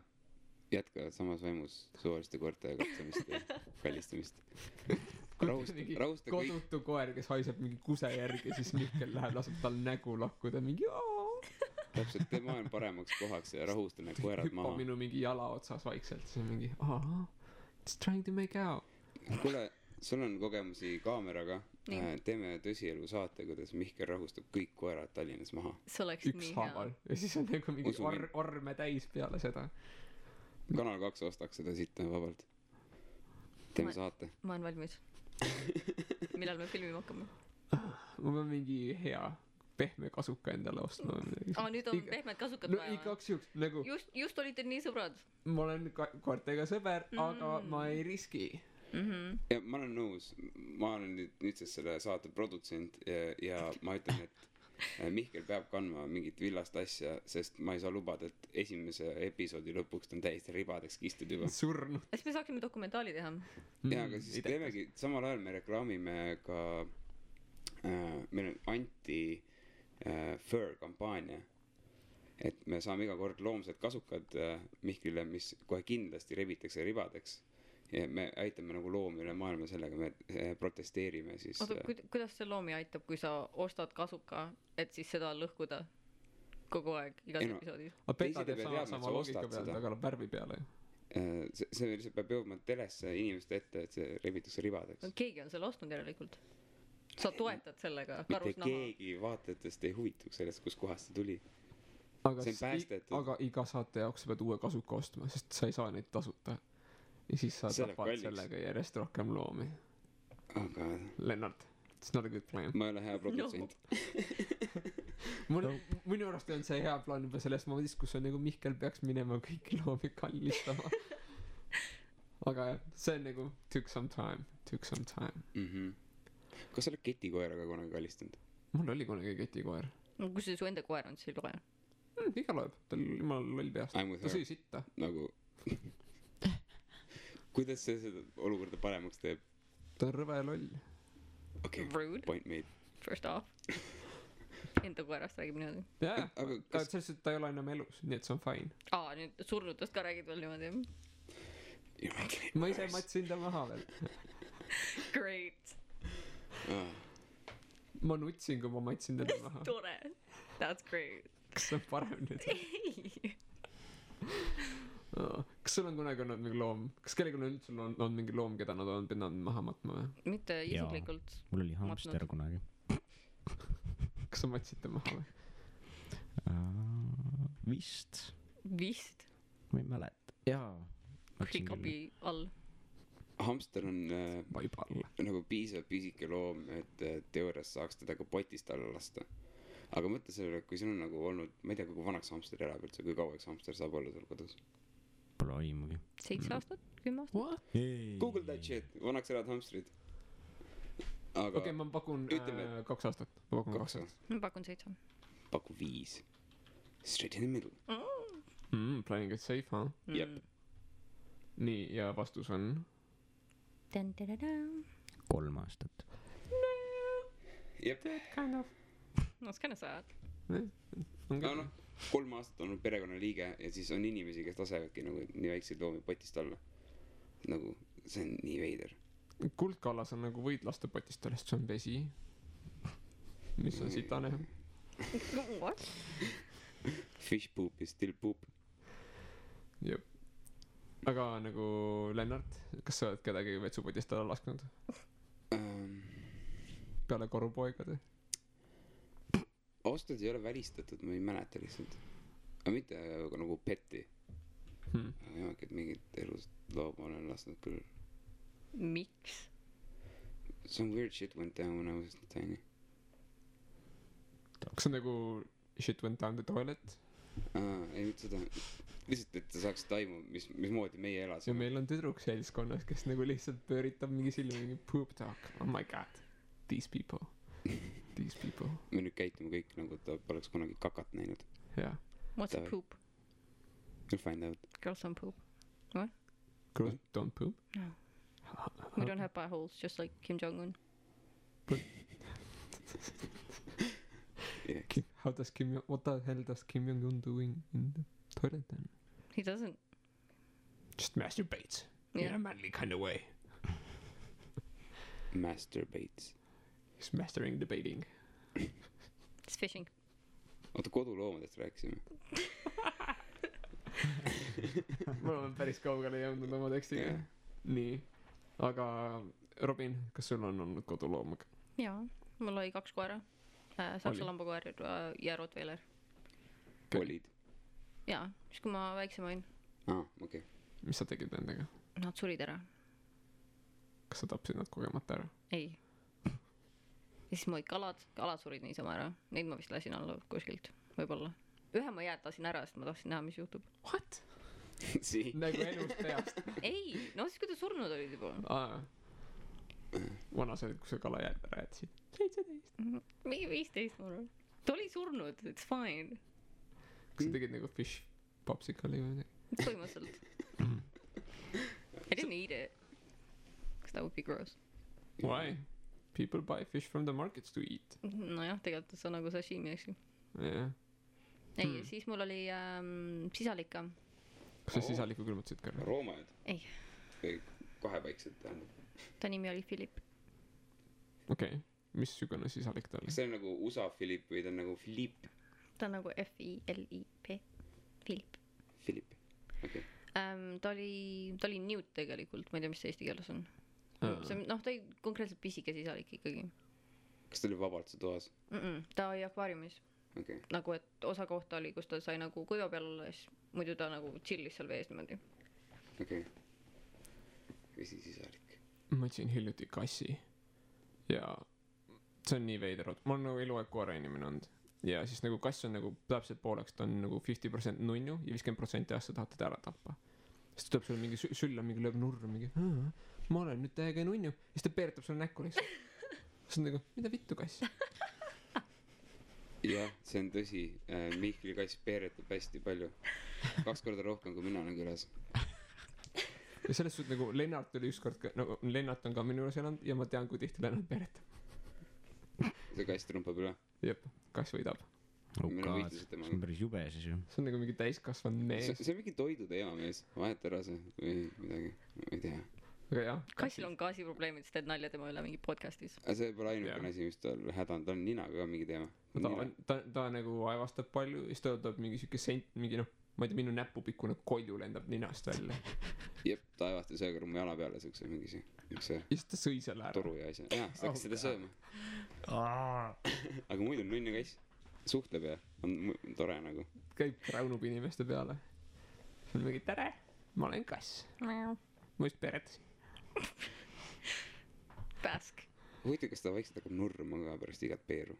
S2: jätkavad samas vaimus suvaliste koerte katsemist ja kallistamist .
S1: mingi
S2: rahusta kõik ,
S1: kodutu koer , kes haiseb mingi kuse järgi , siis Mihkel läheb , laseb tal nägu lakkuda , mingi
S2: täpselt , tee maailm paremaks kohaks ja rahusta need koerad
S1: hüppab
S2: maha .
S1: minu mingi jala otsas vaikselt , siis on mingi it's trying to make out .
S2: kuule , sul on kogemusi kaameraga .
S3: Nii.
S2: teeme tõsielu saate , kuidas Mihkel rahustab kõik koerad Tallinnas maha .
S3: see oleks nii
S1: ükshaaval
S3: hea .
S1: ja siis on nagu mingi
S2: Usu mind.
S1: orme täis peale seda .
S2: Kanal 2 ostaks seda sitta vabalt . teeme
S3: Ma-
S2: saate .
S3: ma olen valmis . millal me filmima hakkame ?
S1: ma pean mingi hea pehme kasuka endale ostma või midagi .
S3: nüüd on pehmed kasukad
S1: no
S3: vaja või ?
S1: igaks juhuks nagu
S3: just olite nii sõbrad
S1: ma olen koertega sõber , aga ma ei riski .
S2: ja ma olen nõus , ma olen nüüdsest selle saate produtsent ja ma ütlen , et Mihkel peab kandma mingit villast asja , sest ma ei saa lubada , et esimese episoodi lõpuks ta on täiesti ribadeks kistud juba .
S1: surnud .
S3: siis me saaksime dokumentaali teha .
S2: ja aga siis teemegi , samal ajal me reklaamime ka meil on anti fur kampaania , et me saame iga kord loomsed kasukad Mihklile , mis kohe kindlasti rebitakse ribadeks ja me aitame nagu loomi üle maailma sellega , me protesteerime siis .
S3: oota , kuidas see loomi aitab , kui sa ostad kasuka , et siis seda lõhkuda kogu aeg igas
S2: Ei no,
S3: episoodis ?
S1: aga
S2: Teised
S1: Peta
S2: ei
S1: teeb
S2: pea
S1: sama
S2: teadma, et
S1: sama
S2: sa
S1: loogika
S2: ostad
S1: pealt ,
S2: seda.
S1: aga värvi peale ju .
S2: see lihtsalt peab jõudma telesse inimeste ette , et see rebitakse ribadeks .
S3: keegi on selle ostnud järelikult . sa toetad sellega
S2: mitte
S3: karusnaha .
S2: keegi vaatajatest ei huvituks sellest , kustkohast see tuli .
S1: aga
S2: See on päästetud.
S1: aga iga saate jaoks sa pead uue kasuka ostma , sest sa ei saa neid tasuta . ja siis sa
S2: See läheb
S1: tapad
S2: kalliks.
S1: sellega järjest rohkem loomi .
S2: aga
S1: Lennart , it's not a good plan .
S2: ma ei ole hea produtsent .
S1: minu arust on see hea plaan juba selles momendis , kus on nagu Mihkel peaks minema kõiki loomi kallistama . aga jah , see on nagu took some time .
S2: kas sa oled ketikoeraga kunagi kallistanud ?
S1: mul oli kunagi ketikoer .
S3: no kui see su enda koer on , siis ei loe .
S1: iga loeb , tal jumala loll peast .
S2: I m with
S1: ta sõi
S2: her .
S1: sitta .
S2: nagu kuidas see seda olukorda paremaks teeb ?
S1: ta on rõve loll .
S2: okei ,
S3: Rude ,
S2: point made .
S3: first off . enda koerast räägib niimoodi .
S1: jaa ,
S2: aga
S1: aga
S2: kas
S1: selles suhtes , et ta ei ole enam elus , nii et see on fine .
S3: nüüd surnutest ka räägid veel niimoodi .
S1: ma ise matsin ta maha veel .
S3: Great ,
S1: ma nutsin , kui ma matsin teda maha .
S3: tore . That's great .
S1: kas see on parem nüüd ?
S3: ei ,
S1: kas sul on kunagi olnud mingi loom , kas kellelgi on üldse olnud mingi loom , keda nad on pidanud maha matma või ?
S3: mitte isiklikult .
S4: mul oli hamster kunagi .
S1: kas sa matsid ta maha või ?
S4: Vist ,
S3: vist ,
S4: ma ei mäleta . jaa .
S3: hiccupi all .
S2: hamster on
S1: vaiba alla .
S2: nagu piisavalt pisike loom , et teoorias saaks teda ka potist alla lasta . aga mõtle sellele , kui sul on nagu olnud , ma ei tea , kui vanaks hamster elab üldse , kui kaua üks hamster saab olla sul kodus .
S4: Pole aimugi .
S3: 7 aastat , 10 aastat .
S1: What ?
S2: Google that shit , vanaks elavad hamstrid . aga
S1: okei , ma pakun
S2: ütleme-
S1: 2 aastat . ma pakun 2
S2: kaks
S1: aastat .
S3: ma pakun 7 .
S2: paku 5 . Straight in the middle .
S1: Playing it safe , huh ?
S2: Jep.
S1: nii , ja vastus on ?
S4: 3 aastat .
S2: jep .
S1: Kind of .
S3: That's kind of sad .
S1: on
S2: aga
S1: küll
S2: noh , 3 aastat olnud perekonnaliige ja siis on inimesi , kes lasevadki nagu nii väikseid loomi potist alla . nagu see on nii veider .
S1: kuldkallas on nagu võid lasta potist alla , sest see on vesi . mis on sitane .
S3: What ?
S2: Fish poop is still poop .
S1: jep . aga nagu Lennart , kas sa oled kedagi vetsupotist alla lasknud peale korupoegade ?
S2: ausalt öeldes ei ole välistatud , ma ei mäleta lihtsalt . aga mitte nagu peti . jah , et mingit elust looma olen lasknud küll .
S3: miks ?
S2: Some weird shit went down when I was tiny .
S1: kas see on nagu shit went down the toilet ?
S2: ei mitte seda , lihtsalt , et sa saaksid aimu , mismoodi meie
S1: ja
S2: elasime .
S1: meil on tüdruk seltskonnas , kes nagu lihtsalt pööritab mingi silmi , mingi poop talk . Oh my god , these people . These people .
S2: me nüüd käitume kõik nagu ta poleks kunagi kakat näinud .
S1: jah .
S3: What's a
S2: Davai.
S3: poop ?
S2: You'll find out .
S3: Girls don't poop .
S1: Girls don't poop .
S3: No. We don't have pie holes , just like Kim Jong-un .
S2: Yeah.
S1: How does Kim , what the hell does Kim Jong-un doing in the toilet then ?
S3: He doesn't .
S1: Just masturbates in a manly kind of way.
S2: Masturbates.
S1: He's mastering debating.
S3: It's fishing.
S2: oota, koduloomadest rääkisime.
S1: Me oleme päris kaugele jõudnud oma tekstiga.
S2: Jah.
S1: Nii. Aga Robin, kas sul on olnud koduloom?
S3: Jaa, mul oli 2 koera. Saksa
S1: Oli?
S3: lambakoer ja Rottweiler.
S2: olid?
S3: Jaa, siis kui ma väiksem olin.
S2: Okei.
S1: Mis sa tegid nendega?
S3: Nad surid ära.
S1: Kas sa tapsid nad kogemata ära?
S3: Ei. Ja siis mu kalad surid niisama ära. Neid ma vist lasin alla kuskilt, võib-olla. Ühe ma jäätasin ära, sest ma tahtsin näha, mis juhtub.
S1: What?
S2: Sii.
S1: Nagu elust peast.
S3: Ei, no siis kui ta surnud olid juba.
S1: Vana sa olid, kui sa kala jääd ära jätsid. 17.
S3: Mingi 15 ma arvan. Ta oli surnud, it's fine.
S1: Kas sa tegid nagu fish popsicle'i või midagi?
S3: Põhimõtteliselt. I didn't eat it. Because that would be gross.
S1: Why? People buy fish from the markets to eat.
S3: Nojah, tegelikult see on nagu sashimi, eks ju.
S1: Yeah.
S3: Ei, siis mul oli sisalika.
S1: Kas sa sisaliku külmutasid ka?
S2: Roomajad?
S3: Ei.
S2: Või kahepaiksed tähendab.
S3: Ta nimi oli Philip.
S1: Okei. Missugune sisalik ta oli?
S2: kas see on nagu USA Philip või ta on nagu Philippe?
S3: Ta on nagu F-I-L-I-P. Philip.
S2: Philip, okei.
S3: Ta oli Newt tegelikult, ma ei tea, mis see eesti keeles on. Noh, ta oli konkreetselt pisike sisalik ikkagi.
S2: kas ta oli vabalt see toas?
S3: Ta oli akvaariumis.
S2: Okei.
S3: Nagu, et osa kohta oli, kus ta sai nagu kuiva peal olla, siis muidu ta nagu chillis seal vees niimoodi.
S2: Okei. Vesisisalik.
S1: Ma otsin hiljuti kassi. Ja see on nii veider. Ma olen nagu eluaeg koera inimene olnud. Ja siis nagu kass on nagu täpselt pooleks, ta on nagu 50% nunnu ja 50% asja tahad teda ära tappa. Siis ta tuleb sulle mingi sülla, mingi lööb nurra, mingi ma olen nüüd täiega nunnu. Siis ta peeretab sulle näkku lihtsalt. Siis on nagu, mida vittu kass?
S2: jah, see on tõsi. Mihkli kass peeretab hästi palju. 2 korda rohkem kui mina olen külas.
S1: Ja selles suhtes nagu Lennart oli ükskord ka, nagu Lennart on ka minu juures elanud ja ma tean, kui tihti Lennart peeretab.
S2: see kass trumpab üle.
S1: Jep, kass võidab.
S2: Meil on võitlused
S4: see
S2: temaga.
S4: on päris jube siis ju.
S1: See on nagu mingi täiskasvanud mees.
S2: see on mingi toidu teema mees. Vahet ära see või midagi. Ma ei tea.
S1: Aga jah.
S3: Kassil on gaasiprobleemid, siis teed nalja tema üle mingi podcastis.
S2: aga see pole ainukene asi, mis tal häda on. Ta on ninaga ka mingi teema.
S1: Ta nagu aevastab palju ja siis ta võtab mingi siuke mingi noh, ma ei tea, minu näpupikkune kolju lendab ninast välja.
S2: Jep, ta aevastas ühe korra mu jala peale siukse mingi see
S1: ja siis ta sõi selle ära.
S2: toru ja asja. jah, sa hakkas seda sööma. aga muidu nunnu kass suhtleb ja on tore nagu.
S1: Käib raunub inimeste peale. See on mingi tere, ma olen kass. Ma just peretasin.
S3: Pääsk.
S2: huvitav, kas ta vaikselt hakkab nurruma ka pärast igat peeru.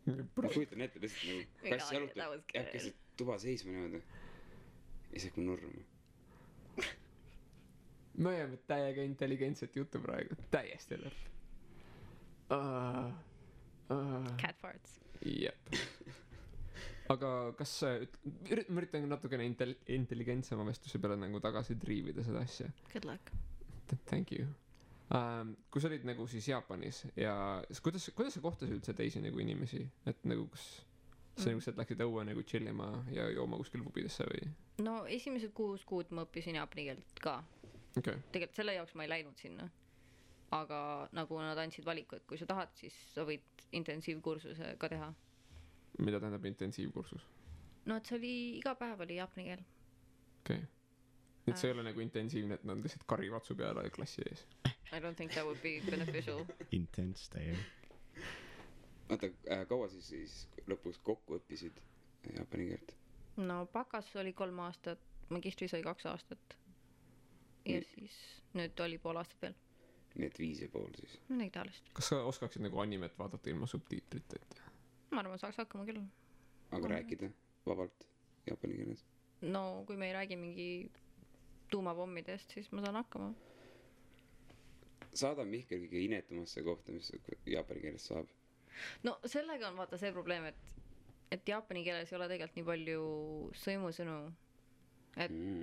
S2: ma kujutan ette lihtsalt nagu kass jalutab, jääb keset tuba seisma niimoodi. ja siis hakkab nurruma.
S1: me ajame täiega intelligentset juttu praegu, täiesti lõpp.
S3: Cat farts.
S1: Jep. Aga kas ma üritan natukene intelligentsema vestluse peale nagu tagasi triivida seda asja.
S3: Good luck.
S1: Thank you. Kui sa olid nagu siis Jaapanis ja kuidas sa kohtasid üldse teisi nagu inimesi, et nagu kas sa nagu sealt läksid õue nagu chillima ja jooma kuskil pubidesse või?
S3: No esimesed 6 kuud ma õppisin jaapani keelt ka.
S1: Okay.
S3: Tegelikult selle jaoks ma ei läinud sinna. Aga nagu nad andsid valiku, et kui sa tahad, siis sa võid intensiivkursuse ka teha.
S1: Mida tähendab intensiivkursus?
S3: No et see oli, iga päev oli jaapani keel.
S1: Okei. Et see ei ole nagu intensiivne, et nad lihtsalt karivatsu peale klassi ees.
S3: I don't think that would be beneficial.
S4: Intense täiega.
S2: oota, kaua siis lõpuks kokku õppisid jaapani keelt?
S3: No bakas oli 3 aastat, magistris oli 2 aastat. Ja siis nüüd oli 5 aastat veel.
S2: nii et 5,5 siis.
S3: Midagi taolist.
S1: Kas sa oskaksid nagu animet vaadata ilma subtiitriteta?
S3: Ma arvan, saaks hakkama küll.
S2: aga rääkida vabalt jaapani keeles?
S3: No kui me ei räägi mingi tuumapommidest, siis ma saan hakkama.
S2: saada Mihkel kõige inetumasse kohta, mis jaapani keeles saab.
S3: No sellega on vaata see probleem, et jaapani keeles ei ole tegelikult nii palju sõimusõnu,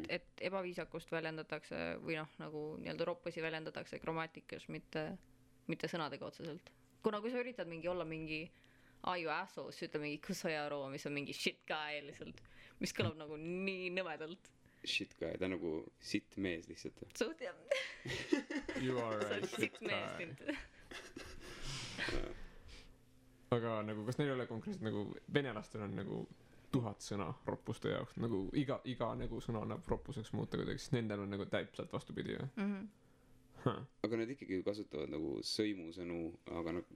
S3: et ebaviisakust väljendatakse või noh, nagu nii-öelda roppusi väljendatakse grammatikas, mitte sõnadega otseselt. Kuna kui sa üritad mingi olla mingi you asshole, siis ütle mingi kusojaro, mis on mingi shit guy lihtsalt, mis kõlab nagu nii nõmedalt.
S2: shit guy, ta on nagu sitt mees lihtsalt .
S3: suht jah ,
S1: You are
S3: sa
S1: a
S3: oled
S1: shit
S3: sitt mees
S1: guy .
S3: teinud .
S1: aga nagu kas neil ei ole konkreetselt nagu venelastel on nagu 1000 sõna roppuste jaoks nagu iga nagu sõna annab roppuseks muuta kuidagi siis nendel on nagu täpselt vastupidi või
S2: aga nad ikkagi ju kasutavad nagu sõimusõnu , aga nad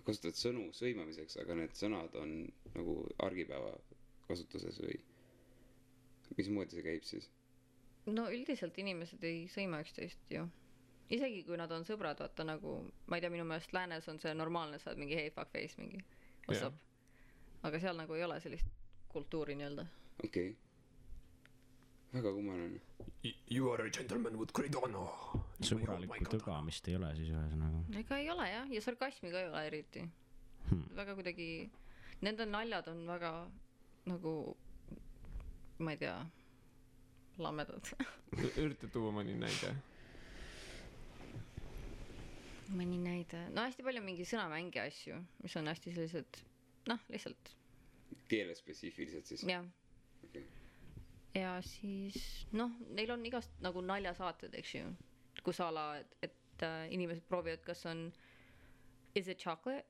S2: kasutavad sõnu sõimamiseks , aga need sõnad on nagu argipäeva kasutuses või mismoodi see käib siis ?
S3: no üldiselt inimesed ei sõima üksteist ju . isegi kui nad on sõbrad , vaata nagu , ma ei tea , minu meelest läänes on see normaalne , sa oled mingi hey fuck face mingi , what's
S1: Jah.
S3: up . aga seal nagu ei ole sellist kultuuri nii-öelda .
S2: okei okay. . väga kummaline .
S1: You are a gentleman with great honor .
S4: sõbralikku tõgamist ei ole siis ühesõnaga .
S3: ega ei ole jah , ja sarkasmi ka ei ole eriti . väga kuidagi , nende naljad on väga nagu , ma ei tea , lamedad .
S1: ürita tuua mõni näide .
S3: mõni näide , no hästi palju mingi sõnamängi asju , mis on hästi sellised , noh , lihtsalt
S2: keelespetsiifiliselt siis ?
S3: jah .
S2: okei .
S3: ja siis noh , neil on igast nagu naljasaated , eks ju , kus a la , et inimesed proovivad , kas on is it chocolate ,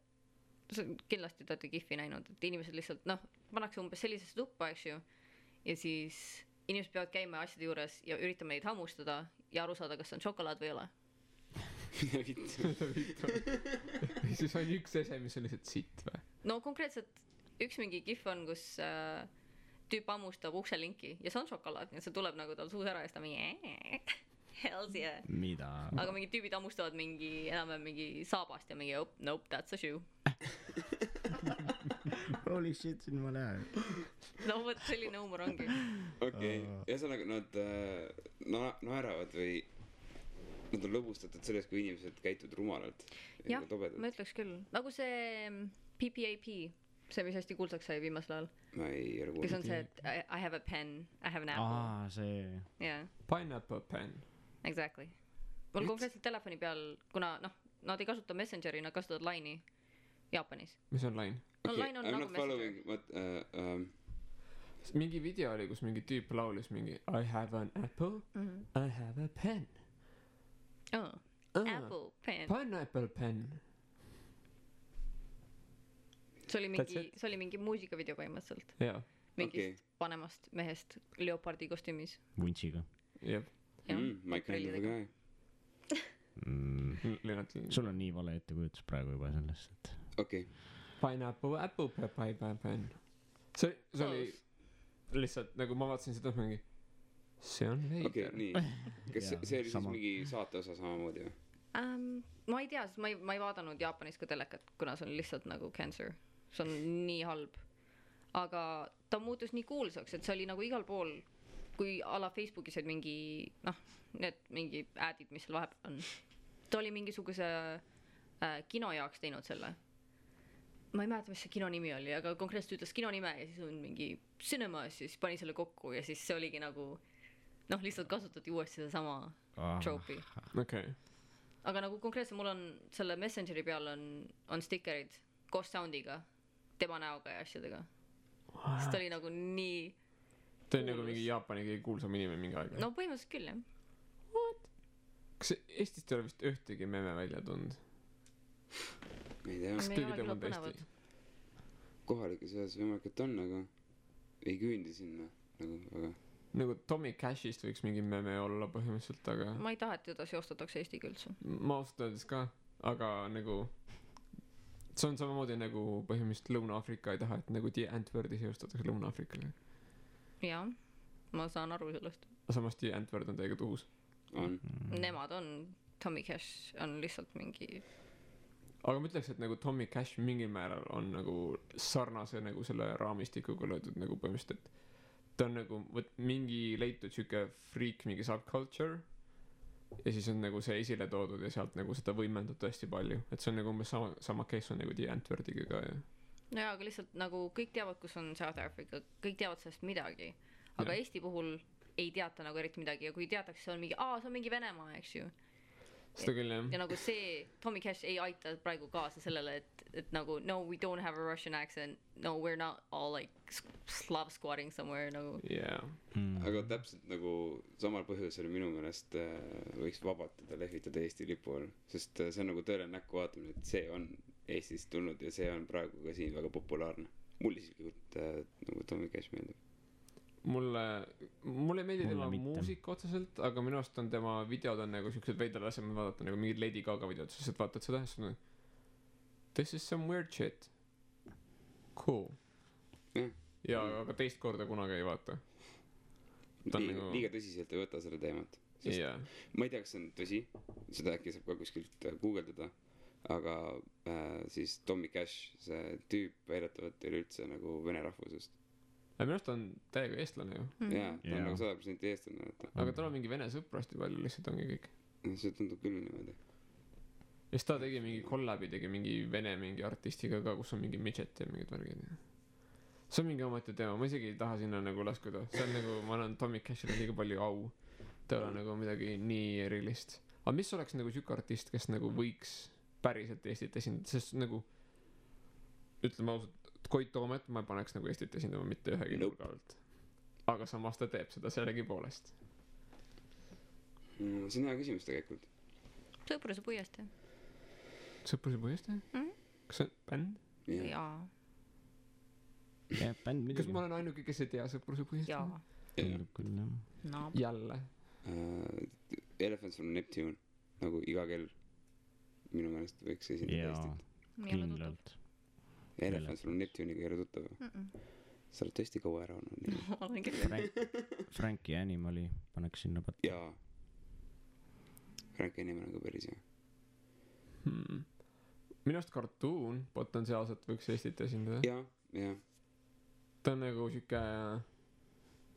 S3: kindlasti te olete Kihvi näinud , et inimesed lihtsalt noh , pannakse umbes sellisesse tuppa , eks ju , ja siis inimesed peavad käima asjade juures ja üritama neid hammustada ja aru saada , kas on šokolaad või ei ole .
S2: mida vittu ?
S1: siis on üks ese , mis on lihtsalt sitt või ?
S3: no konkreetselt üks mingi Kihv on , kus tüüp hammustab ukselinki ja see on šokolaad , nii et see tuleb nagu tal suus ära ja siis ta mingi hells yeah .
S4: mida ?
S3: aga mingid tüübid hammustavad mingi enam-vähem mingi saabast ja mingi oh, nope that's a shoe .
S4: Holy shit , siin ma näen .
S3: no vot selline huumor ongi .
S2: okei , ühesõnaga nad naeravad või nad on lõbustatud sellest , kui inimesed käituvad rumalalt .
S3: jah , ma ütleks küll , nagu see PPAP , see , mis hästi kuulsaks sai viimasel ajal ,
S2: ma ei ole
S3: kes
S2: kuulnud .
S3: on see , et I have a pen , I have an apple .
S4: see .
S3: jaa ,
S1: Pineapple pen .
S3: exactly . mul konkreetselt telefoni peal , kuna noh , nad ei kasuta Messengeri , nad kasutavad Line'i Jaapanis .
S1: mis on Line ?
S3: no Line on
S2: I m
S3: nagu
S2: not following
S3: Messenger .
S1: mingi video oli , kus mingi tüüp laulis mingi I have an apple , I have a pen .
S3: Oh, apple pen .
S1: Pineapple pen .
S3: see oli mingi muusikavideo põhimõtteliselt .
S1: jaa ,
S3: mingist
S2: Okei.
S3: vanemast mehest leopardi kostüümis .
S4: vuntsiga .
S1: jah .
S2: My kind of a guy .
S1: Lennart .
S4: sul on nii vale ettekujutus praegu juba sellest , et
S2: okei ,
S1: Pineapple , apple , pineapple pen . see oli lihtsalt nagu ma vaatasin seda mingi , see on
S2: okei ,
S1: veider .
S2: nii . kas
S4: Jaa,
S2: see oli siis
S4: sama.
S2: mingi saate osa samamoodi või ?
S3: ma ei tea , sest ma ei vaadanud Jaapanis ka telekat , kuna see on lihtsalt nagu cancer , see on nii halb . aga ta muutus nii kuulsaks , et see oli nagu igal pool , kui a la Facebookis olid mingi noh , need mingi ad'id , mis seal vahepeal on . ta oli mingisuguse kino jaoks teinud selle . ma ei mäleta , mis see kino nimi oli , aga konkreetselt ütles kino nime ja siis on mingi cinemas ja siis pani selle kokku ja siis see oligi nagu noh , lihtsalt kasutati uuesti sedasama trope'i .
S1: okei .
S3: aga nagu konkreetselt mul on selle Messengeri peal on stikerid koos sound'iga , tema näoga ja asjadega . sest ta oli nagu nii ,
S1: ta on nagu mingi Jaapani kõige kuulsam inimene mingi aeg .
S3: no põhimõtteliselt küll jah .
S1: kas Eestist ei ole vist ühtegi meme välja tulnud ?
S2: ma ei tea ,
S3: Me ei
S1: keegi
S3: ole
S1: teab
S3: küll
S1: mõnda
S3: põnevad.
S2: Eesti kohalikes osas võimalik , et on , aga ei küündi sinna nagu väga .
S1: nagu Tommy Cashist võiks mingi meme olla põhimõtteliselt , aga
S3: ma ei taha , et teda seostatakse Eestiga üldse .
S1: ma ausalt öeldes ka , aga nagu see on samamoodi nagu põhimõtteliselt Lõuna-Aafrika ei taha , et nagu The Antwordi seostatakse Lõuna-Aafrikaga .
S3: jah , ma saan aru sellest .
S1: samas The Antword on täiega tuhus .
S2: on .
S3: Nemad on , Tommy Cash on lihtsalt mingi ,
S1: aga ma ütleks , et nagu Tommy Cash mingil määral on nagu sarnase nagu selle raamistikuga löödud nagu põhimõtteliselt , et ta on nagu vot mingi leitud siuke freak , mingi subculture ja siis on nagu see esile toodud ja sealt nagu seda võimendatud hästi palju , et see on nagu umbes sama case on nagu The Antwordiga ka ja
S3: nojaa , aga lihtsalt nagu kõik teavad , kus on South Africa , kõik teavad sellest midagi , aga
S1: Jah.
S3: Eesti puhul ei teata nagu eriti midagi ja kui teatakse , see on mingi , see on mingi Venemaa , eks ju .
S1: seda küll jah
S3: ja nagu see Tommy Cash ei aita praegu kaasa sellele et nagu no we don't have a Russian accent no we're not all like Slav squatting somewhere nagu
S1: yeah.
S2: aga täpselt nagu samal põhjusel minu meelest võiks vabalt teda lehvitada Eesti lipu all, sest see on nagu tõeline näkku vaatamine, et see on Eestist tulnud ja see on praegu ka siin väga populaarne. Mulle isiklikult nagu Tommy Cash meeldib.
S1: Mulle ei meeldi tema
S4: mitte.
S1: muusika otseselt, aga minu arust on tema videod on nagu siuksed veidrad asjad, ma vaatan nagu mingid Lady Gaga videod, siis vaatad seda ja siis on this is some weird shit. Cool. Ja aga teist korda kunagi ei vaata.
S2: Liiga tõsiselt ei võta selle teemat.
S1: Yeah.
S2: Ma ei tea, kas see on tõsi, seda äkki saab ka kuskilt guugeldada, aga siis Tommy Cash, see tüüp väidetavalt ei ole üldse nagu vene rahvusest.
S1: Minu arust on täiega eestlane ju.
S2: Jaa, ta on nagu 100% eestlane.
S1: Aga tal on mingi vene sõpru hästi palju, lihtsalt ongi kõik.
S2: See tundub küll niimoodi.
S1: Ja siis ta tegi mingi kollabi, tegi mingi vene mingi artistiga ka, kus on mingi midget ja mingid värgid. See on mingi omati teema, ma isegi ei taha sinna nagu laskuda. See on nagu, ma annan Tommy Cashile liiga palju au. Ta ei ole nagu midagi nii erilist. Aga mis oleks nagu siuke artist, kes nagu võiks päriselt Eestit esindada, sest nagu ütleme ausalt, Koit Toomet ma paneks nagu Eestit esindama mitte ühegi nurga alt. Aga samas ta teeb seda sellegi poolest.
S2: See on hea küsimus tegelikult.
S3: Sõpruse puiestee.
S1: Sõpruse puiestee? Kas see on bänd?
S3: Jaa.
S4: Jah, bänd midagi.
S1: Kas ma olen ainuke, kes ei tea Sõpruse puiestee?
S3: Jaa.
S4: Tundub küll, jah.
S3: No.
S1: Jälle.
S2: Elephants from Neptune, nagu iga kell minu meelest võiks esindada Eestit.
S4: Kindlalt.
S2: Elephants from Neptune'iga ei ole tuttav. Sa oled tõesti kaua ära olnud.
S3: Olen küll.
S4: Frankie Animali paneks sinna patta.
S2: Jaa. Frankie Animal on ka päris hea.
S1: Minu arust Cartoon potentsiaalselt võiks Eestit esindada.
S2: Jaa.
S1: Ta on nagu siuke,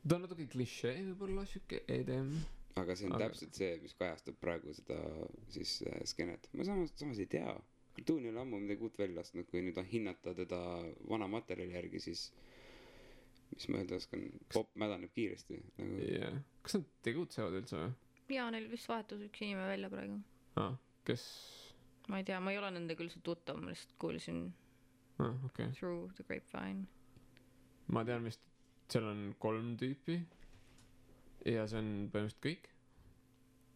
S1: ta on natuke klišee võib-olla siuke edem.
S2: Aga see on täpselt see, mis kajastab praegu seda siis skeenet. Ma samas ei tea. Cartoon ei ole ammu midagi uut välja lastud, kui nüüd on hinnata teda vana materjali järgi, siis mis ma öelda oskan, pop mädaneb kiiresti nagu...
S1: Yeah. Kas nad tegutsevad üldse või?
S3: Jaa, neil vist vahetus üks inimene välja praegu.
S1: Kes?
S3: Ma ei tea, ma ei ole nende küll see tuttav, ma lihtsalt kuulsin
S1: okay.
S3: Through the Grapevine.
S1: Ma tean vist, seal on 3 tüüpi ja see on põhimõtteliselt kõik.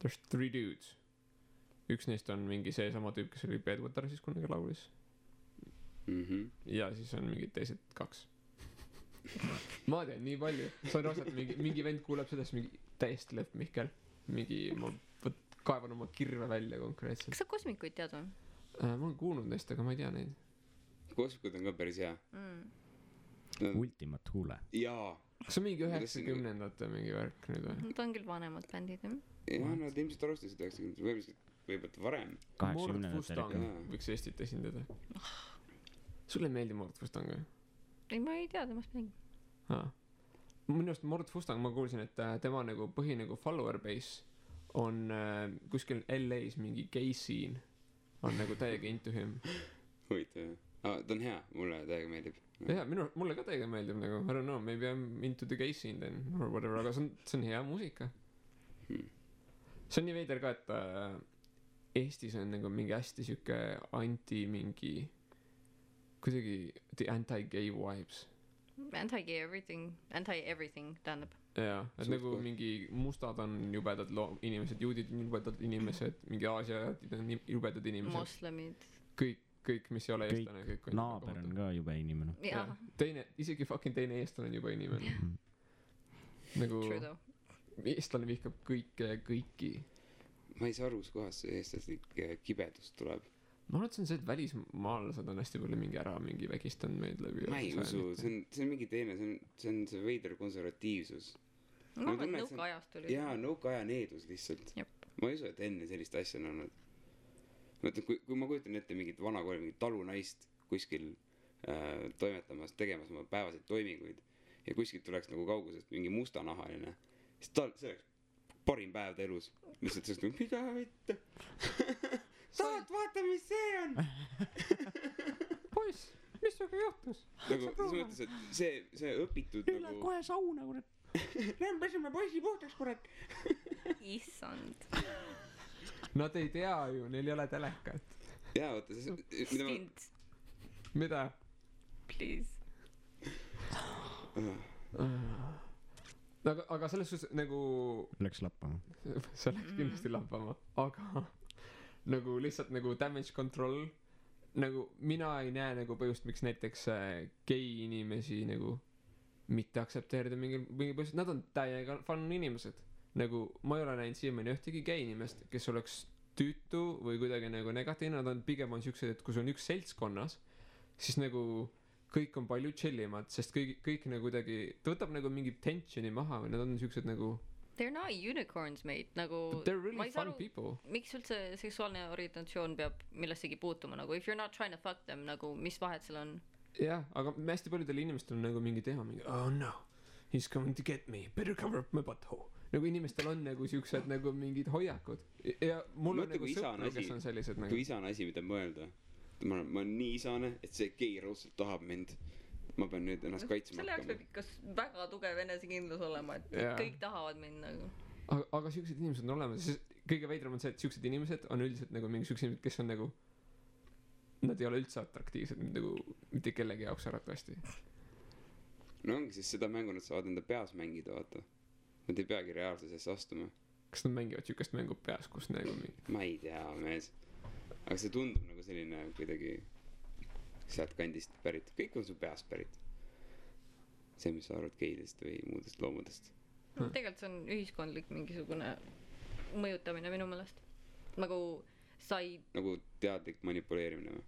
S1: There's 3 dudes. Üks neist on mingi see sama tüüp, kes oli Bedwater siis kunagi laulis. Ja siis on mingid teised 2. Ma tean nii palju. See on osad, mingi vend kuuleb sellest mingi täiesti lõpp Mihkel. Mingi, ma kaevan oma kirve välja konkreetselt.
S3: Kas sa kosmikuid tead või?
S1: Ma olen kuulnud neist, aga ma ei tea neid.
S2: Kosmikud on ka päris hea.
S4: Ultimate Hule.
S2: Jaa.
S1: Kas on mingi 90ndate mingi värk nüüd või?
S3: Nad on küll vanemad bändid, jah?
S2: Jaa, nad ilmselt alustasid 90ndate, võib-olla varem.
S1: Mord Fustang võiks Eestit esindada. Sulle ei meeldi Mord Fustang või?
S3: Ei, ma ei tea temast midagi.
S1: Minu arust Mord Fustang, ma kuulsin, et tema nagu põhi nagu follower base on kuskil LA's mingi gay scene on nagu täiega into him.
S2: Huvitav. Ta on hea, mulle täiega meeldib.
S1: Jaa, mulle ka täiega meeldib nagu, I don't know, maybe I'm into the gay scene then or whatever, aga see on hea muusika. See on nii veider ka, et Eestis on nagu mingi hästi siuke mingi kuidagi the anti-gay vibes.
S3: Anti-gay everything, tähendab.
S1: Jaa, et nagu mingi mustad on jubedad inimesed, juudid on jubedad inimesed, mingi aasiad on jubedad inimesed.
S3: Moslemid.
S1: Kõik, mis ei ole eestlane, kõik on
S4: naaber on ka jube inimene.
S3: Jaa.
S1: Isegi fucking teine eestlane on jube inimene. Nagu eestlane vihkab kõiki.
S2: Ma ei saa aru, kohas see eestlaslik kibedus tuleb.
S1: Ma arvan, et see on see, et välismaalased on hästi palju mingi vägistanud meid läbi.
S2: Ma ei usu, see on mingi teine, see on see veider konservatiivsus.
S3: Ma arvan, et nõukaajast tuli.
S2: Jaa, nõukaaja needus lihtsalt. Ma ei usu, et enne sellist asja on olnud. Mõtlen, kui ma kujutan ette mingit vanakooli, mingit talunaist kuskil toimetamas, tegemas oma päevaseid toiminguid ja kuskilt tuleks nagu kaugusest mingi mustanahaline, siis see oleks parim päev ta elus. Lihtsalt sellest nagu, mida võtta? Tahad vaata, mis see on?
S1: Poiss, mis sinuga juhtus?
S2: Nagu, selles mõttes, et see õpitud
S4: Üle
S2: nagu...
S4: kohe sauna, kurat.
S2: Lähen peseme poisi puhtaks, kurat.
S3: Issand.
S1: Nad ei tea ju, neil ei ole telekat.
S2: jaa, vaata, mida ma...
S3: Stint,
S1: Mida?
S3: please.
S1: Aga selles suhtes nagu
S4: Läks lappama.
S1: see läks kindlasti lappama, aga nagu lihtsalt nagu damage control, nagu mina ei näe nagu põhjust, miks näiteks gei inimesi nagu mitte aktsepteerida mingil põhjusel, nad on täiega fun inimesed. Nagu ma ei ole näinud siiamaani ühtegi gei inimest, kes oleks tüütu või kuidagi nagu negatiivne, nad on pigem on siuksed, et kui sul on üks seltskonnas, siis nagu kõik on palju chillimad, sest kõik nagu kuidagi, ta võtab nagu mingi tensioni maha või nad on siuksed nagu
S3: They're not unicorns, mate, nagu
S1: they're
S3: ma
S1: really
S3: ei saa
S1: fun
S3: aru,
S1: people.
S3: miks üldse seksuaalne orientatsioon peab millessegi puutuma, nagu if you're not trying to fuck them, nagu mis vahet seal on?
S1: Jah, aga hästi paljudel inimestel on nagu mingi teha mingi oh no, he's coming to get me, better cover up my butthole. Nagu inimestel on nagu siuksed nagu mingid hoiakud ja mul on
S2: Mõtle,
S1: nagu
S2: kui isane
S1: sõpru, kes
S2: asi-
S1: on sellised
S2: kui
S1: nagu
S2: isane asi, mida mõelda. Ma olen nii isane, et see gei raudselt tahab mind. Ma pean nüüd ennast kaitsma
S3: selle jaoks
S2: hakkama.
S3: peab ikka väga tugev enesekindlus olema, et
S1: Jaa.
S3: kõik tahavad mind nagu.
S1: aga siuksed inimesed on olemas, sest kõige veidram on see, et siuksed inimesed on üldiselt nagu mingi siuksed inimesed, kes on nagu nad ei ole üldse atraktiivsed nagu mitte kellegi jaoks arvatavasti.
S2: No ongi siis seda mängu nad saavad enda peas mängida, vaata. Nad ei peagi reaalsusesse astuma.
S1: Kas nad mängivad siukest mängu peas, kus nagu mingi
S2: Ma ei tea, mees. Aga see tundub nagu selline kuidagi sealt kandist pärit. Kõik on su peast pärit. See, mis sa arvad geidest või muudest loomadest.
S3: Tegelikult see on ühiskondlik mingisugune mõjutamine minu meelest. Nagu sa ei
S2: Nagu teadlik manipuleerimine või?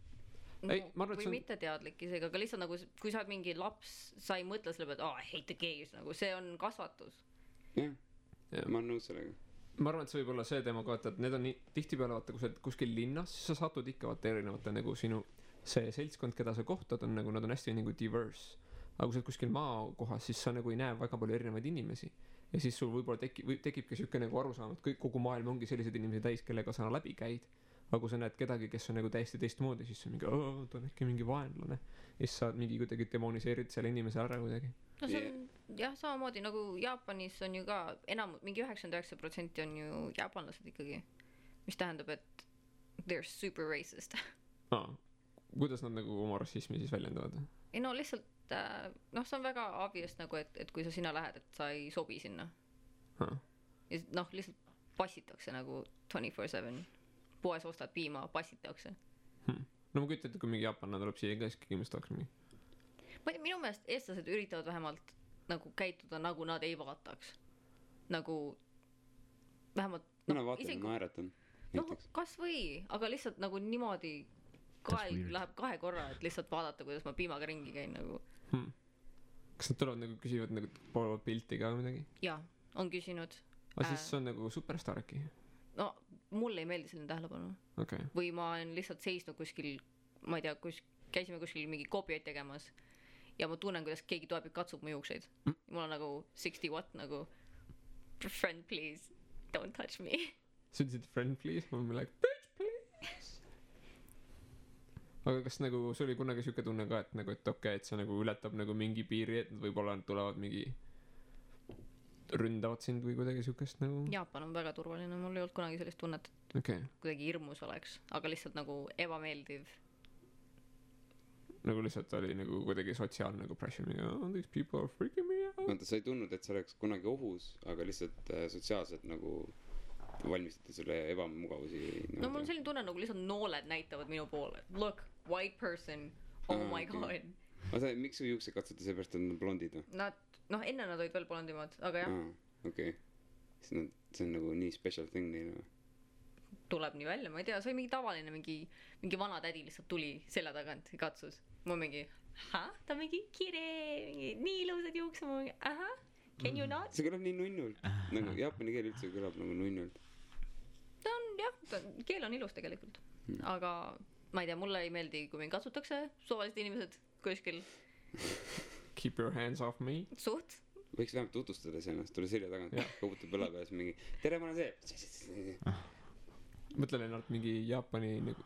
S1: Ei,
S3: no,
S1: ma arvan, et
S3: või
S1: see on-
S3: mitte teadlik isegi, aga lihtsalt nagu kui sa oled mingi laps, sa ei mõtle selle peale, et I hate the gays, nagu see on kasvatus.
S2: Jah,
S1: Jah.
S2: ma olen nõus sellega.
S1: ma arvan, et see võib olla see teema ka, et need on nii tihtipeale vaata, kui sa oled kuskil linnas, siis sa satud ikka vaata erinevate nagu sinu see seltskond, keda sa kohtad, on nagu nad on hästi nagu diverse. aga kui sa oled kuskil maakohas, siis sa nagu ei näe väga palju erinevaid inimesi ja siis sul võib-olla tekibki siuke nagu arusaam, et kogu maailm ongi selliseid inimesi täis, kellega sa läbi käid. aga kui sa näed kedagi, kes on nagu täiesti teistmoodi, siis see on mingi ta on äkki mingi vaenlane ja siis sa mingi kuidagi demoniseerid selle inimese ära kuidagi.
S3: no see on jah, samamoodi nagu Jaapanis on ju ka mingi 99% on ju jaapanlased ikkagi, mis tähendab, et they're super racist.
S1: kuidas nad nagu oma rassismi siis väljendavad?
S3: ei no lihtsalt noh, see on väga obvious nagu, et kui sa sinna lähed, et sa ei sobi sinna ja noh, lihtsalt passitakse nagu 24/7. poes ostad piima, passitakse.
S1: no ma kujutan ette, kui mingi jaapanlane tuleb siia ka, siis kindlasti oleks mingi
S3: minu meelest eestlased üritavad vähemalt nagu käituda, nagu nad ei vaataks. nagu vähemalt
S2: mina vaatan ja naeratan.
S3: noh, kas või, aga lihtsalt nagu niimoodi kael läheb 2 korra, et lihtsalt vaadata, kuidas ma piimaga ringi käin nagu.
S1: kas nad tulevad nagu küsivad nagu poole pilti ka või midagi?
S3: jaa, on küsinud.
S1: aga siis see on nagu superstaar äkki?
S3: no mulle ei meeldi selline tähelepanu.
S1: okei.
S3: või ma olen lihtsalt seisnud kuskil, ma ei tea, käisime kuskil mingi koopiaid tegemas ja ma tunnen, kuidas keegi tuleb ja katsub mu juukseid. mul on nagu 60 watt nagu friend please don't touch me.
S1: sa ütlesid friend please, ma olin like bitch please. aga kas nagu sul oli kunagi siuke tunne ka, et nagu, et okei, et see nagu ületab nagu mingi piiri, et nad võib-olla tulevad mingi ründavad sind või kuidagi siukest nagu?
S3: Jaapan on väga turvaline, mul ei olnud kunagi sellist tunnet, et
S1: okei.
S3: kuidagi hirmus oleks, aga lihtsalt nagu ebameeldiv.
S1: nagu lihtsalt oli nagu kuidagi sotsiaalne nagu pressure mingi these people are freaking me out.
S2: vaata, sa ei tundnud, et sa oleks kunagi ohus, aga lihtsalt sotsiaalselt nagu valmistati sulle ebamugavusi.
S3: no mul on selline tunne, nagu lihtsalt nooled näitavad minu poole. Look, white person, oh my god.
S2: oota, miks su juuksed katsuti seepärast, et nad on blondid või?
S3: Nad, noh, enne nad olid veel blondimad, aga jah,
S2: okei. siis nad, see on nagu nii special thing neile või?
S3: tuleb nii välja, ma ei tea, see oli mingi tavaline, mingi vana tädi lihtsalt tuli selja tagant ja katsus. ma mingi, ta mingi kire, nii ilusad juuksed, ma mingi, can you not?
S2: see kõlab nii nunnult. nagu jaapani keel üldse kõlab nagu nunnult.
S3: ta on jah, keel on ilus tegelikult. aga ma ei tea, mulle ei meeldi, kui mind katsutakse suvalised inimesed kuskil.
S1: Keep your hands off me.
S3: Suht.
S2: võiks vähemalt tutvustada ennast, tule selja tagant, koputab õla peas mingi tere, ma olen see.
S1: mõtle Lennart, mingi Jaapani nagu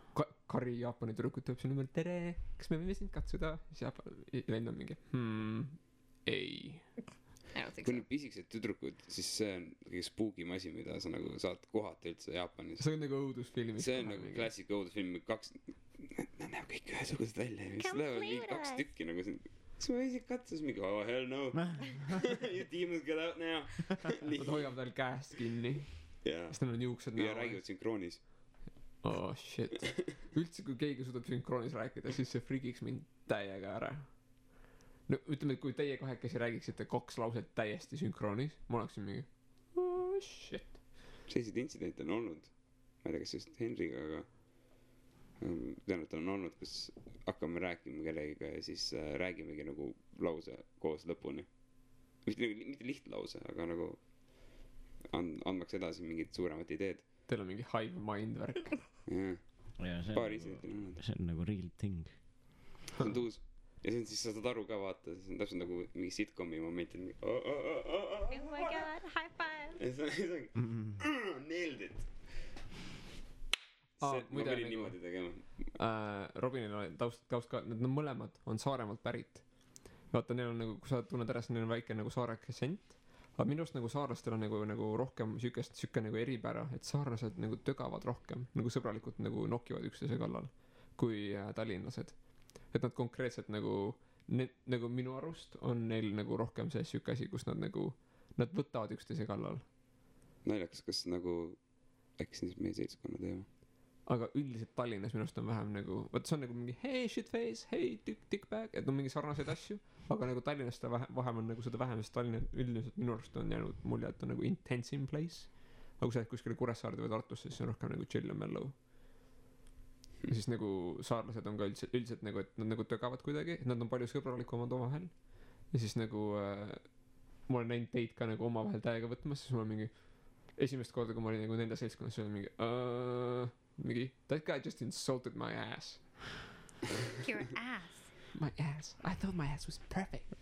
S1: kari Jaapani tüdrukut tuleb sinna ümber, tere, kas me võime sind katsuda? siis Jaapan vend on mingi ei.
S3: I don't think
S2: kui
S3: so.
S2: need pisikesed tüdrukud, siis see on kõige spookim asi, mida sa nagu saad kohata üldse Jaapanis.
S1: see on nagu õudusfilmis
S2: see on nagu klassik õudusfilm, nad näevad kõik ühesugused välja ja siis lähevad mingi 2 tükki nagu siin. Kas ma isegi katsus mingi, oh hell no. You demons get out now.
S1: nad hoiavad tal käest kinni
S2: ja
S1: siis neil on juuksed
S2: ja räägivad sünkroonis.
S1: Oh shit. Üldse kui keegi suudab sünkroonis rääkida, siis see frigiks mind täiega ära. No ütleme, et kui teie kahekesi räägiksite 2 lauset täiesti sünkroonis, ma oleksin mingi oh shit.
S2: Selliseid intsidente on olnud. Ma ei tea, kas just Henriga, aga tean, et on olnud, kus hakkame rääkima kellegiga ja siis räägimegi nagu lause koos lõpuni. Mitte lihtlause, aga nagu andmaks edasi mingid suuremad ideed.
S1: Teil on mingi hive mind värk.
S2: Jah, paari intsidentil on olnud.
S4: See on nagu real thing.
S2: See on tuus. Ja see on siis, sa saad aru ka vaata, see on täpselt nagu mingi sitcomi moment, et
S3: Oh my god, high five!
S2: ja see ongi nailed it. Ma pidin niimoodi tegema.
S1: Robinil on taust ka, need mõlemad on Saaremaalt pärit. Vaata, neil on nagu, kui sa tunned ära, siis neil on väike nagu saare aktsent. Aga minu arust nagu saarlastel on nagu rohkem süke nagu eripära, et saarlased nagu tögavad rohkem, nagu sõbralikult nagu nokivad üksteise kallal kui tallinlased. Et nad konkreetselt nagu minu arust on neil nagu rohkem see süke asi, kus nad võtavad üksteise kallal.
S2: Naljakas, kas nagu äkki siis meie seltskonna teema.
S1: Aga üldiselt Tallinnas minu arust on vähem nagu, võt see on nagu mingi hey shitface, hey dickbag, et on mingi sarnaseid asju, aga nagu Tallinnas ta vähem on nagu seda vähem, sest Tallinna üldiselt minu arust on jäänud mulje, et on nagu intense in place. Aga kui sa kuskile Kuressaarde või Tartusse, siis on rohkem nagu chill ja mellow. Ja siis nagu saarlased on ka üldiselt nagu, et nad nagu tögavad kuidagi, et nad on palju sõbralikumad omavahel. Ja siis nagu ma olen näinud teid ka nagu omavahel täiega võtmas, siis mul on mingi esimest korda, kui ma olin nagu nende seltskonnas, siis oli mingi that guy just insulted my ass.
S3: Your ass.
S1: My ass. I thought my ass was perfect.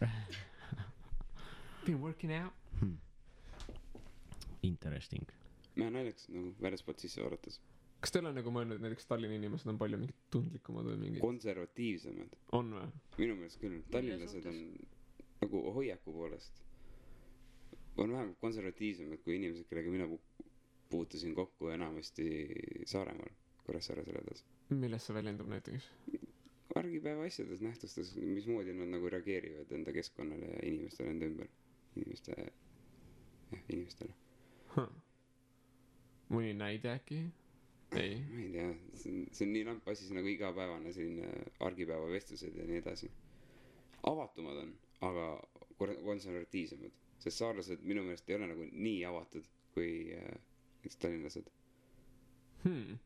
S1: Been working out.
S4: Interesting.
S2: Mä naljakas nagu väljaspolt sisse vaadates.
S1: Kas teil on nagu mõelnud, et näiteks Tallinna inimesed on palju mingid tundlikumad või mingid?
S2: Konservatiivsemad.
S1: On või?
S2: Minu meelest küll. Tallinlased on nagu hoiaku poolest. On vähem konservatiivsemad kui inimesed, kellega mina puutusin kokku enamasti Saaremaal, Kuressaare selles.
S1: Milles see väljendub näiteks?
S2: Argipäeva asjades, nähtustes, mismoodi nad nagu reageerivad enda keskkonnale ja inimestele enda ümber. Inimestele.
S1: Mõni näide äkki? Ei.
S2: Ma ei tea, see on nii lamp asi, nagu igapäevane selline argipäeva vestlused ja nii edasi. Avatumad on, aga konservatiivsemad. Sest saarlased minu meelest ei ole nagu nii avatud kui tallinlased.
S1: Minu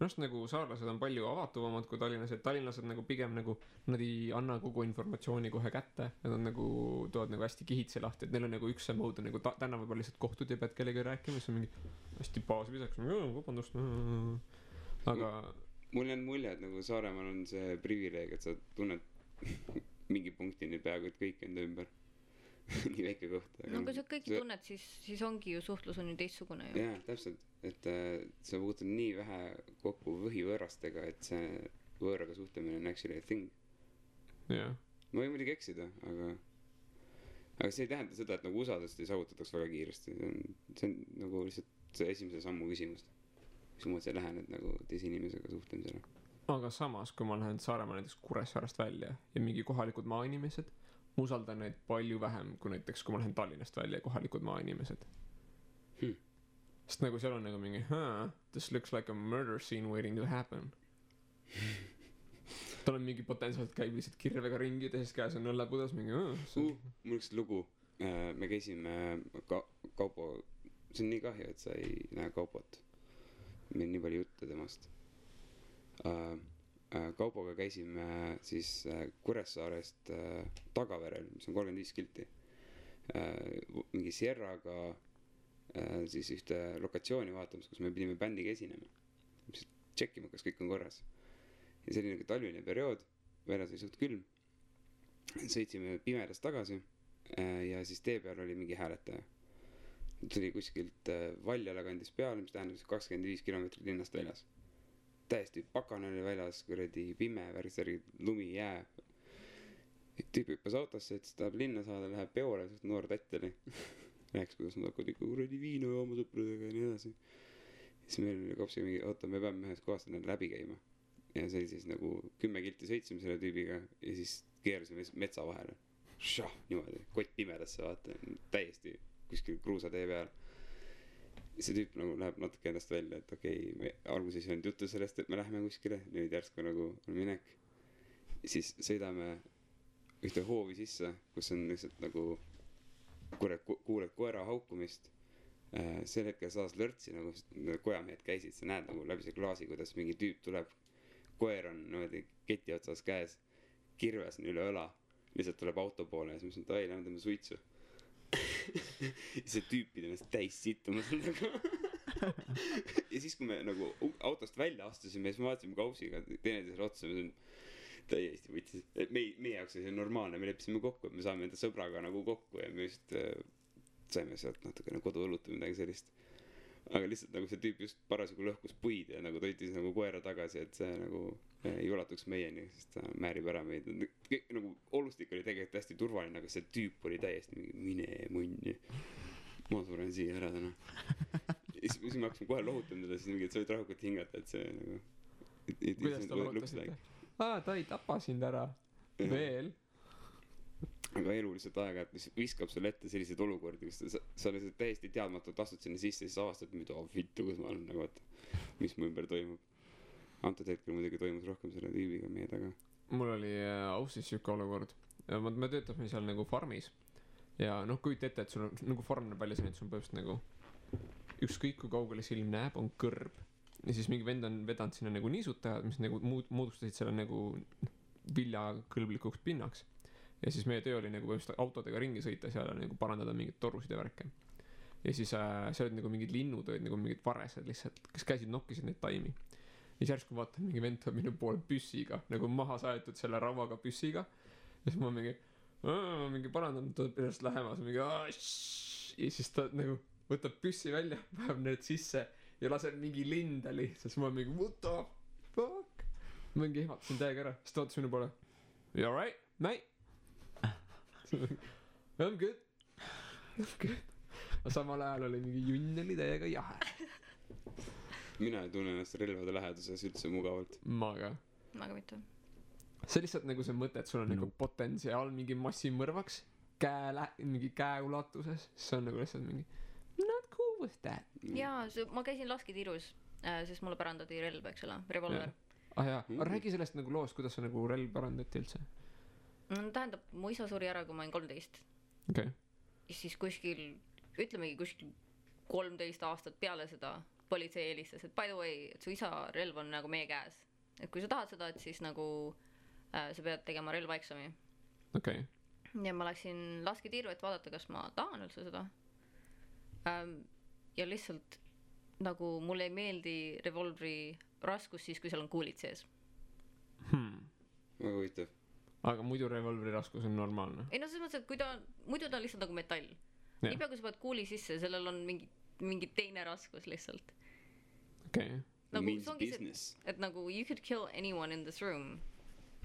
S1: arust nagu saarlased on palju avatuvamad kui tallinlased. Tallinlased nagu pigem nagu, nad ei anna kogu informatsiooni kohe kätte. Nad on nagu, tood nagu hästi kihitse lahti, et neil on nagu üks see mood, nagu täna võib-olla lihtsalt kohtud ja pead kellega rääkima, siis on mingi hästi baasvisaks, vabandust. Aga
S2: mul on mulje, et nagu Saaremaal on see privileeg, et sa tunned mingi punktini peaaegu, et kõik enda ümber. Nii väike koht.
S3: No kui sa kõiki tunned, siis ongi ju suhtlus on ju teistsugune ju.
S2: Jaa, täpselt. Et sa puutud nii vähe kokku võhivõõrastega, et see võõraga suhtlemine on actually a thing.
S1: jah.
S2: Ma võin muidugi eksida, aga see ei tähenda seda, et nagu usaldust ei saavutataks väga kiiresti. See on nagu lihtsalt see esimese sammu küsimus. Mismoodi sa lähened nagu teise inimesega suhtlemisele.
S1: Aga samas, kui ma lähen Saaremaa näiteks Kuressaarast välja ja mingi kohalikud maainimesed, ma usaldan neid palju vähem kui näiteks, kui ma lähen Tallinnast välja ja kohalikud maainimesed. Sest nagu seal on nagu mingi, this looks like a murder scene waiting to happen. Tal on mingi potentsiaalselt käib lihtsalt kirvega ringi, teises käes on õllepudas mingi,
S2: mul üks lugu, me käisime Kaupo, see on nii kahju, et sa ei näe Kaupot. Meil nii palju jutte temast. Kaupoga käisime siis Kuressaarest Tagaverel, mis on 35 kilti. Mingi Sierraga siis ühte lokatsiooni vaatamas, kus me pidime bändiga esinema. Tšekkima, kas kõik on korras. Ja see oli nagu talvine periood, väljas oli suht külm. Sõitsime pimedas tagasi ja siis tee peal oli mingi hääletaja. Tuli kuskilt Valjala kandis peale, mis tähendab 25 kilomeetrit linnast väljas. Täiesti pakane oli väljas, kuradi pime, värgisärgi, lumi, jää. tüüp hüppas autosse, et siis tahab linna saada, läheb peole, suht noor tatt oli. Rääkis, kuidas nad hakkavad ikka kuradi viina jooma sõpradega ja nii edasi. Siis meil oli kopsiga mingi, oota, me peame ühest kohast läbi käima. Ja see oli siis nagu 10 kilti sõitsime selle tüübiga ja siis keerasime metsa vahele. Šah, niimoodi, kott pimedasse, vaata, täiesti kuskil kruusatee peal. See tüüp nagu läheb natuke endast välja, et okei, me alguses ei olnud juttu sellest, et me läheme kuskile, nüüd järsku nagu on minek. Siis sõidame ühte hoovi sisse, kus on lihtsalt nagu kuuled koera haukumist. Sel hetkel saas lörtsi, nagu kojamehed käisid, sa näed nagu läbi see klaasi, kuidas mingi tüüp tuleb. Koer on niimoodi keti otsas käes, kirves on üle õla, lihtsalt tuleb auto poole ja siis mõtlesin, et ai, lähme teeme suitsu. See tüüp pidi ennast täis sittuma seal taga. Ja siis, kui me nagu autost välja astusime, siis me vaatasime kausiga teineteisele otsa, me olime täiesti võtsis, et meie jaoks oli see normaalne, me leppisime kokku, et me saame enda sõbraga nagu kokku ja me just saime sealt natukene koduõlut või midagi sellist. Aga lihtsalt nagu see tüüp just parasjagu lõhkus puid ja nagu toitis nagu koera tagasi, et see nagu ei ulatuks meieni, sest ta määrib ära meid. Nagu olustik oli tegelikult hästi turvaline, aga see tüüp oli täiesti mingi mine munni. Ma suren siia ära täna. Ja siis me hakkasime kohe lohutama teda, siis mingi, et sa võid rahukult hingata, et see nagu...
S1: Kuidas ta lohutasite? Ta ei tapa sind ära. Veel.
S2: Aga elu lihtsalt aega, et viskab sulle ette selliseid olukordi, kus sa lihtsalt täiesti teadmatult astud sinna sisse ja siis avastad, mida vittu, kus ma olen nagu, et mis mu ümber toimub. Antud hetkel muidugi toimus rohkem selle tüübiga meie taga.
S1: Mul oli austis siuke olukord. Me töötasime seal nagu farmis ja noh, kujuta ette, et sul on nagu farm näeb välja selline, et sul on põhimõtteliselt nagu ükskõik kui kaugele silm näeb, on kõrb. Ja siis mingi vend on vedanud sinna nagu niisutajad, mis nagu moodustasid selle nagu viljakõlblikuks pinnaks. Ja siis meie töö oli nagu põhimõtteliselt autodega ringi sõita seal ja nagu parandada mingid torusid ja värke. Ja siis seal olid nagu mingid linnud, olid nagu mingid varesed lihtsalt, kes käisid nokkisid neid taimi. Ja siis järsku vaatan, mingi vend tuleb minu poole püssiga, nagu maha saetud selle rauaga püssiga. Ja siis ma mingi parandan, tuleb ennast lähemas, mingi ja siis ta nagu võtab püssi välja, päev need sisse ja laseb mingi linda lihtsalt. Siis ma mingi, what the fuck? Ma mingi ehmatasin täiega ära, siis ta vaatas minu poole. You alright, mate? I'm good. Aga samal ajal oli mingi junn oli täiega jahe.
S2: Mina ei tunne ennast relvade läheduses üldse mugavalt.
S1: Ma ka
S3: mitte.
S1: See lihtsalt nagu see mõte, et sul on nagu potentsiaal mingi massimõrvaks mingi käe ulatuses. See on nagu lihtsalt mingi not cool with that.
S3: Jaa, ma käisin lasketiirus, sest mulle pärandati relv, eks ole, revolver.
S1: Jaa, räägi sellest nagu loost, kuidas see nagu relv pärandati üldse.
S3: Tähendab, mu isa suri ära, kui ma olin 13.
S1: Okay.
S3: Ja siis kuskil, ütlemegi kuskil 13 aastat peale seda politsei eelistas, et by the way, et su isa relv on nagu meie käes. Et kui sa tahad seda, et siis nagu sa pead tegema relvaeksami.
S1: Okay.
S3: Ja ma läksin lasketiiru, et vaadata, kas ma tahan üldse seda. Ja lihtsalt nagu mulle ei meeldi revolvri raskus siis, kui seal on kuulid sees.
S2: Väga huvitav.
S1: Aga muidu revolvri raskus on normaalne.
S3: Ei no selles mõttes, et muidu ta on lihtsalt nagu metall. Niipea kui sa pead kuuli sisse, sellel on mingi teine raskus lihtsalt.
S1: Okay.
S3: Nagu,
S2: means business.
S3: Et nagu you could kill anyone in this room.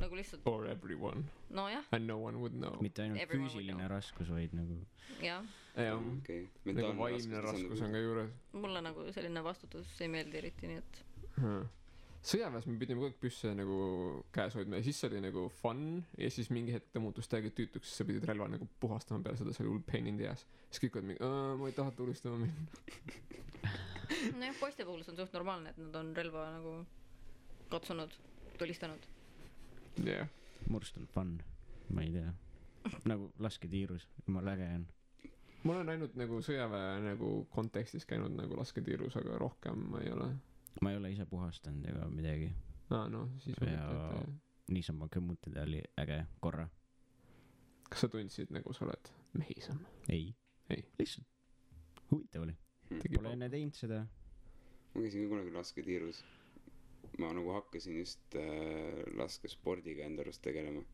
S3: Nagu lihtsalt.
S1: Or everyone.
S3: No jah.
S1: And no one would know.
S4: Mitte ainult füüsiline raskus, vaid nagu.
S3: Jah.
S2: Okay.
S1: Nagu vaimne raskus on ka juures.
S3: Mulle nagu selline vastutus ei meeldi eriti, nii et.
S1: Sõjaväes me pidime kogu aeg püsse nagu käes hoidma ja siis see oli nagu fun ja siis mingi hetk ta muutus täiega tüütuks, siis sa pidid relva nagu puhastama peale seda, see oli hull pain in the ass. Siis kõik olid mingi, ma ei taha tulistama minna.
S3: Nojah, poiste puhul see on suht normaalne, et nad on relva nagu katsunud, tulistanud.
S1: Yeah.
S4: Murst on fun, ma ei tea. Nagu lasketiirus, jumala äge on.
S1: Ma olen ainult nagu sõjaväe nagu kontekstis käinud nagu lasketiirus, aga rohkem ma ei ole.
S4: Ma ei ole ise puhastanud ega midagi.
S1: No, siis
S4: ja niisama kõmmutada oli äge korra.
S1: Kas sa tundsid nagu sa oled mehisam?
S4: Ei. Lihtsalt huvitav oli. Pole enne teinud seda.
S2: Ma käisin ka kunagi lasketiirus. Ma nagu hakkasin just laskespordiga enda arust tegelema.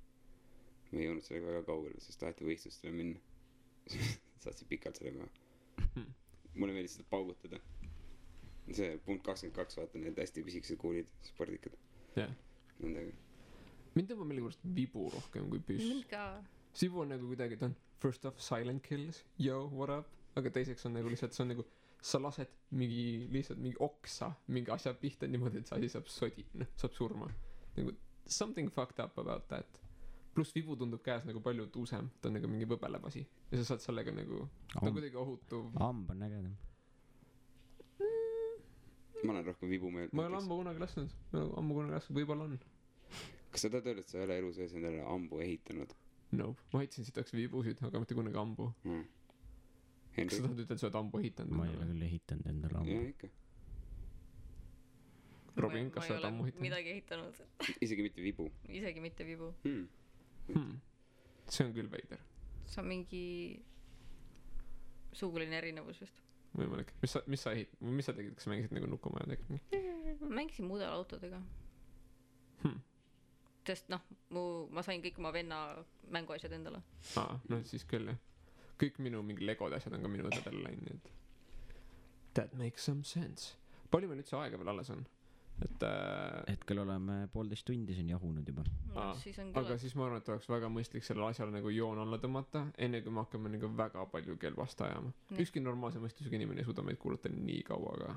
S2: Ma ei jõudnud sellega väga kaugele, sest taheti võistlustele minna. Saatsin pikalt sellega. Mulle meeldis seda paugutada. See punkt 22, vaata need hästi pisikesed kuulid, spordikad.
S1: Yeah.
S2: Nendega.
S1: mind tõmbab millegipärast vibu rohkem kui püss.
S3: mind ka.
S1: Vibu on nagu kuidagi, ta on first off silent kills, yo, what up, aga teiseks on nagu lihtsalt, see on nagu sa lased lihtsalt mingi oksa mingi asja pihta niimoodi, et see asi saab saab surma. Nagu something fucked up about that. Pluss vibu tundub käes nagu palju tuusem, ta on nagu mingi võbelev asi ja sa saad sellega nagu, ta on kuidagi ohutu.
S4: Amb on ägedam.
S2: ma olen rohkem vibu meelt.
S1: ma ei ole ammu kunagi lasknud, võib-olla on.
S2: kas sa tahad öelda, et sa ei ole elu sees endale ambu ehitanud?
S1: Nope, ma ehitasin sitaks vibusid, aga mitte kunagi ambu. Kas sa tahad ütelda, et sa oled ambu ehitanud?
S4: Ma ei ole küll ehitanud endale ambu.
S2: Jaa, ikka.
S1: Robin, kas sa oled ammu ehitanud?
S3: midagi ehitanud.
S2: Isegi mitte vibu.
S3: Isegi mitte vibu.
S1: See on küll veider.
S3: See on mingi suguline erinevus vist.
S1: Võimalik. Mis sa tegid, kas sa mängisid nagu nukumaja tegid?
S3: Mängisin mudelautodega. Sest ma sain kõik oma venna mänguasjad endale.
S1: Siis küll jah. Kõik minu mingi legode asjad on ka minu õdedele läinud, nii et that makes some sense. Palju meil üldse aega veel alles on?
S4: Hetkel oleme 1,5 tundi siin jahunud juba.
S1: Aga siis ma arvan, et oleks väga mõistlik sellele asjale nagu joon alla tõmmata, enne kui me hakkame nagu väga palju kelvast ajama. Ükski normaalse mõistusega inimene ei suuda meid kuulata nii kaua, aga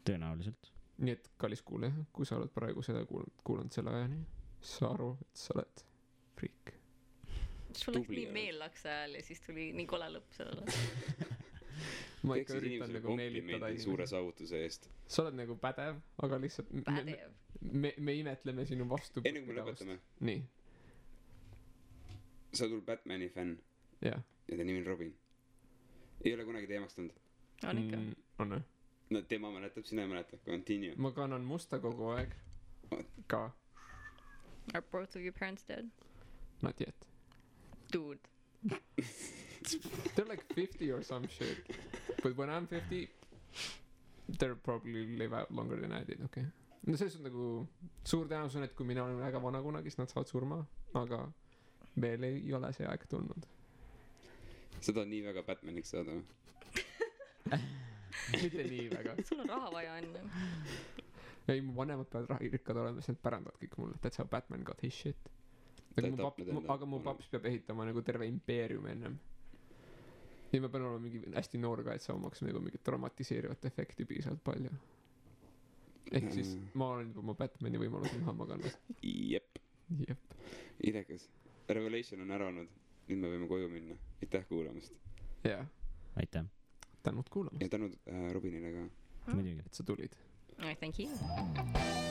S4: tõenäoliselt.
S1: Nii et kallis kuule, kui sa oled praegu seda kuulanud selle ajani, sa aru, et sa oled friik.
S3: Sul läks nii meellaks ajal ja siis tuli nii kole lõpp sellele.
S1: Ma ikka üritan nagu meelitada
S2: suure saavutuse eest.
S1: Sa oled nagu pädev, aga lihtsalt me imetleme sinu vastu.
S2: Enne kui me lõpetame.
S1: Nii.
S2: Sa oled Batmani fänn.
S1: Ja
S2: ta nimi on Robin. Ei ole kunagi teemaks tulnud.
S3: On ikka.
S1: On või?
S2: No tema mäletab, sina ei mäleta. Continue.
S1: Ma kannan musta kogu aeg. Ka.
S3: Are both of your parents dead?
S1: Not yet.
S3: Dude.
S1: They're like 50 or some shit. But when I'm 50, they'll probably live out longer than I did, okay? No see on nagu suur tõenäosus on, et kui mina olen väga vana kunagi, siis nad saavad surma, aga veel ei ole see aeg tulnud.
S2: Sa tahad nii väga Batmaniks saada või?
S1: Mitte nii väga.
S3: Sul on raha vaja enne.
S1: Ei, mu vanemad peavad rikkad olema, siis nad pärandavad kõik mulle. That's how Batman got his shit. Aga mu paps peab ehitama nagu terve impeerium ennem. Ja ma pean olema mingi hästi noor ka, et saamaks nagu mingit dramatiseerivat efekti piisavalt palju. Ehk siis ma olen juba oma Batmani võimalusi maha maganud.
S2: Jep. Idekas. Revelation on ära olnud. Nüüd me võime koju minna. Aitäh kuulamast.
S1: Jaa.
S4: Aitäh.
S1: Tänud kuulamast.
S2: Ja tänud Robinile ka.
S4: Muidugi.
S1: Et sa tulid.
S3: Thank you.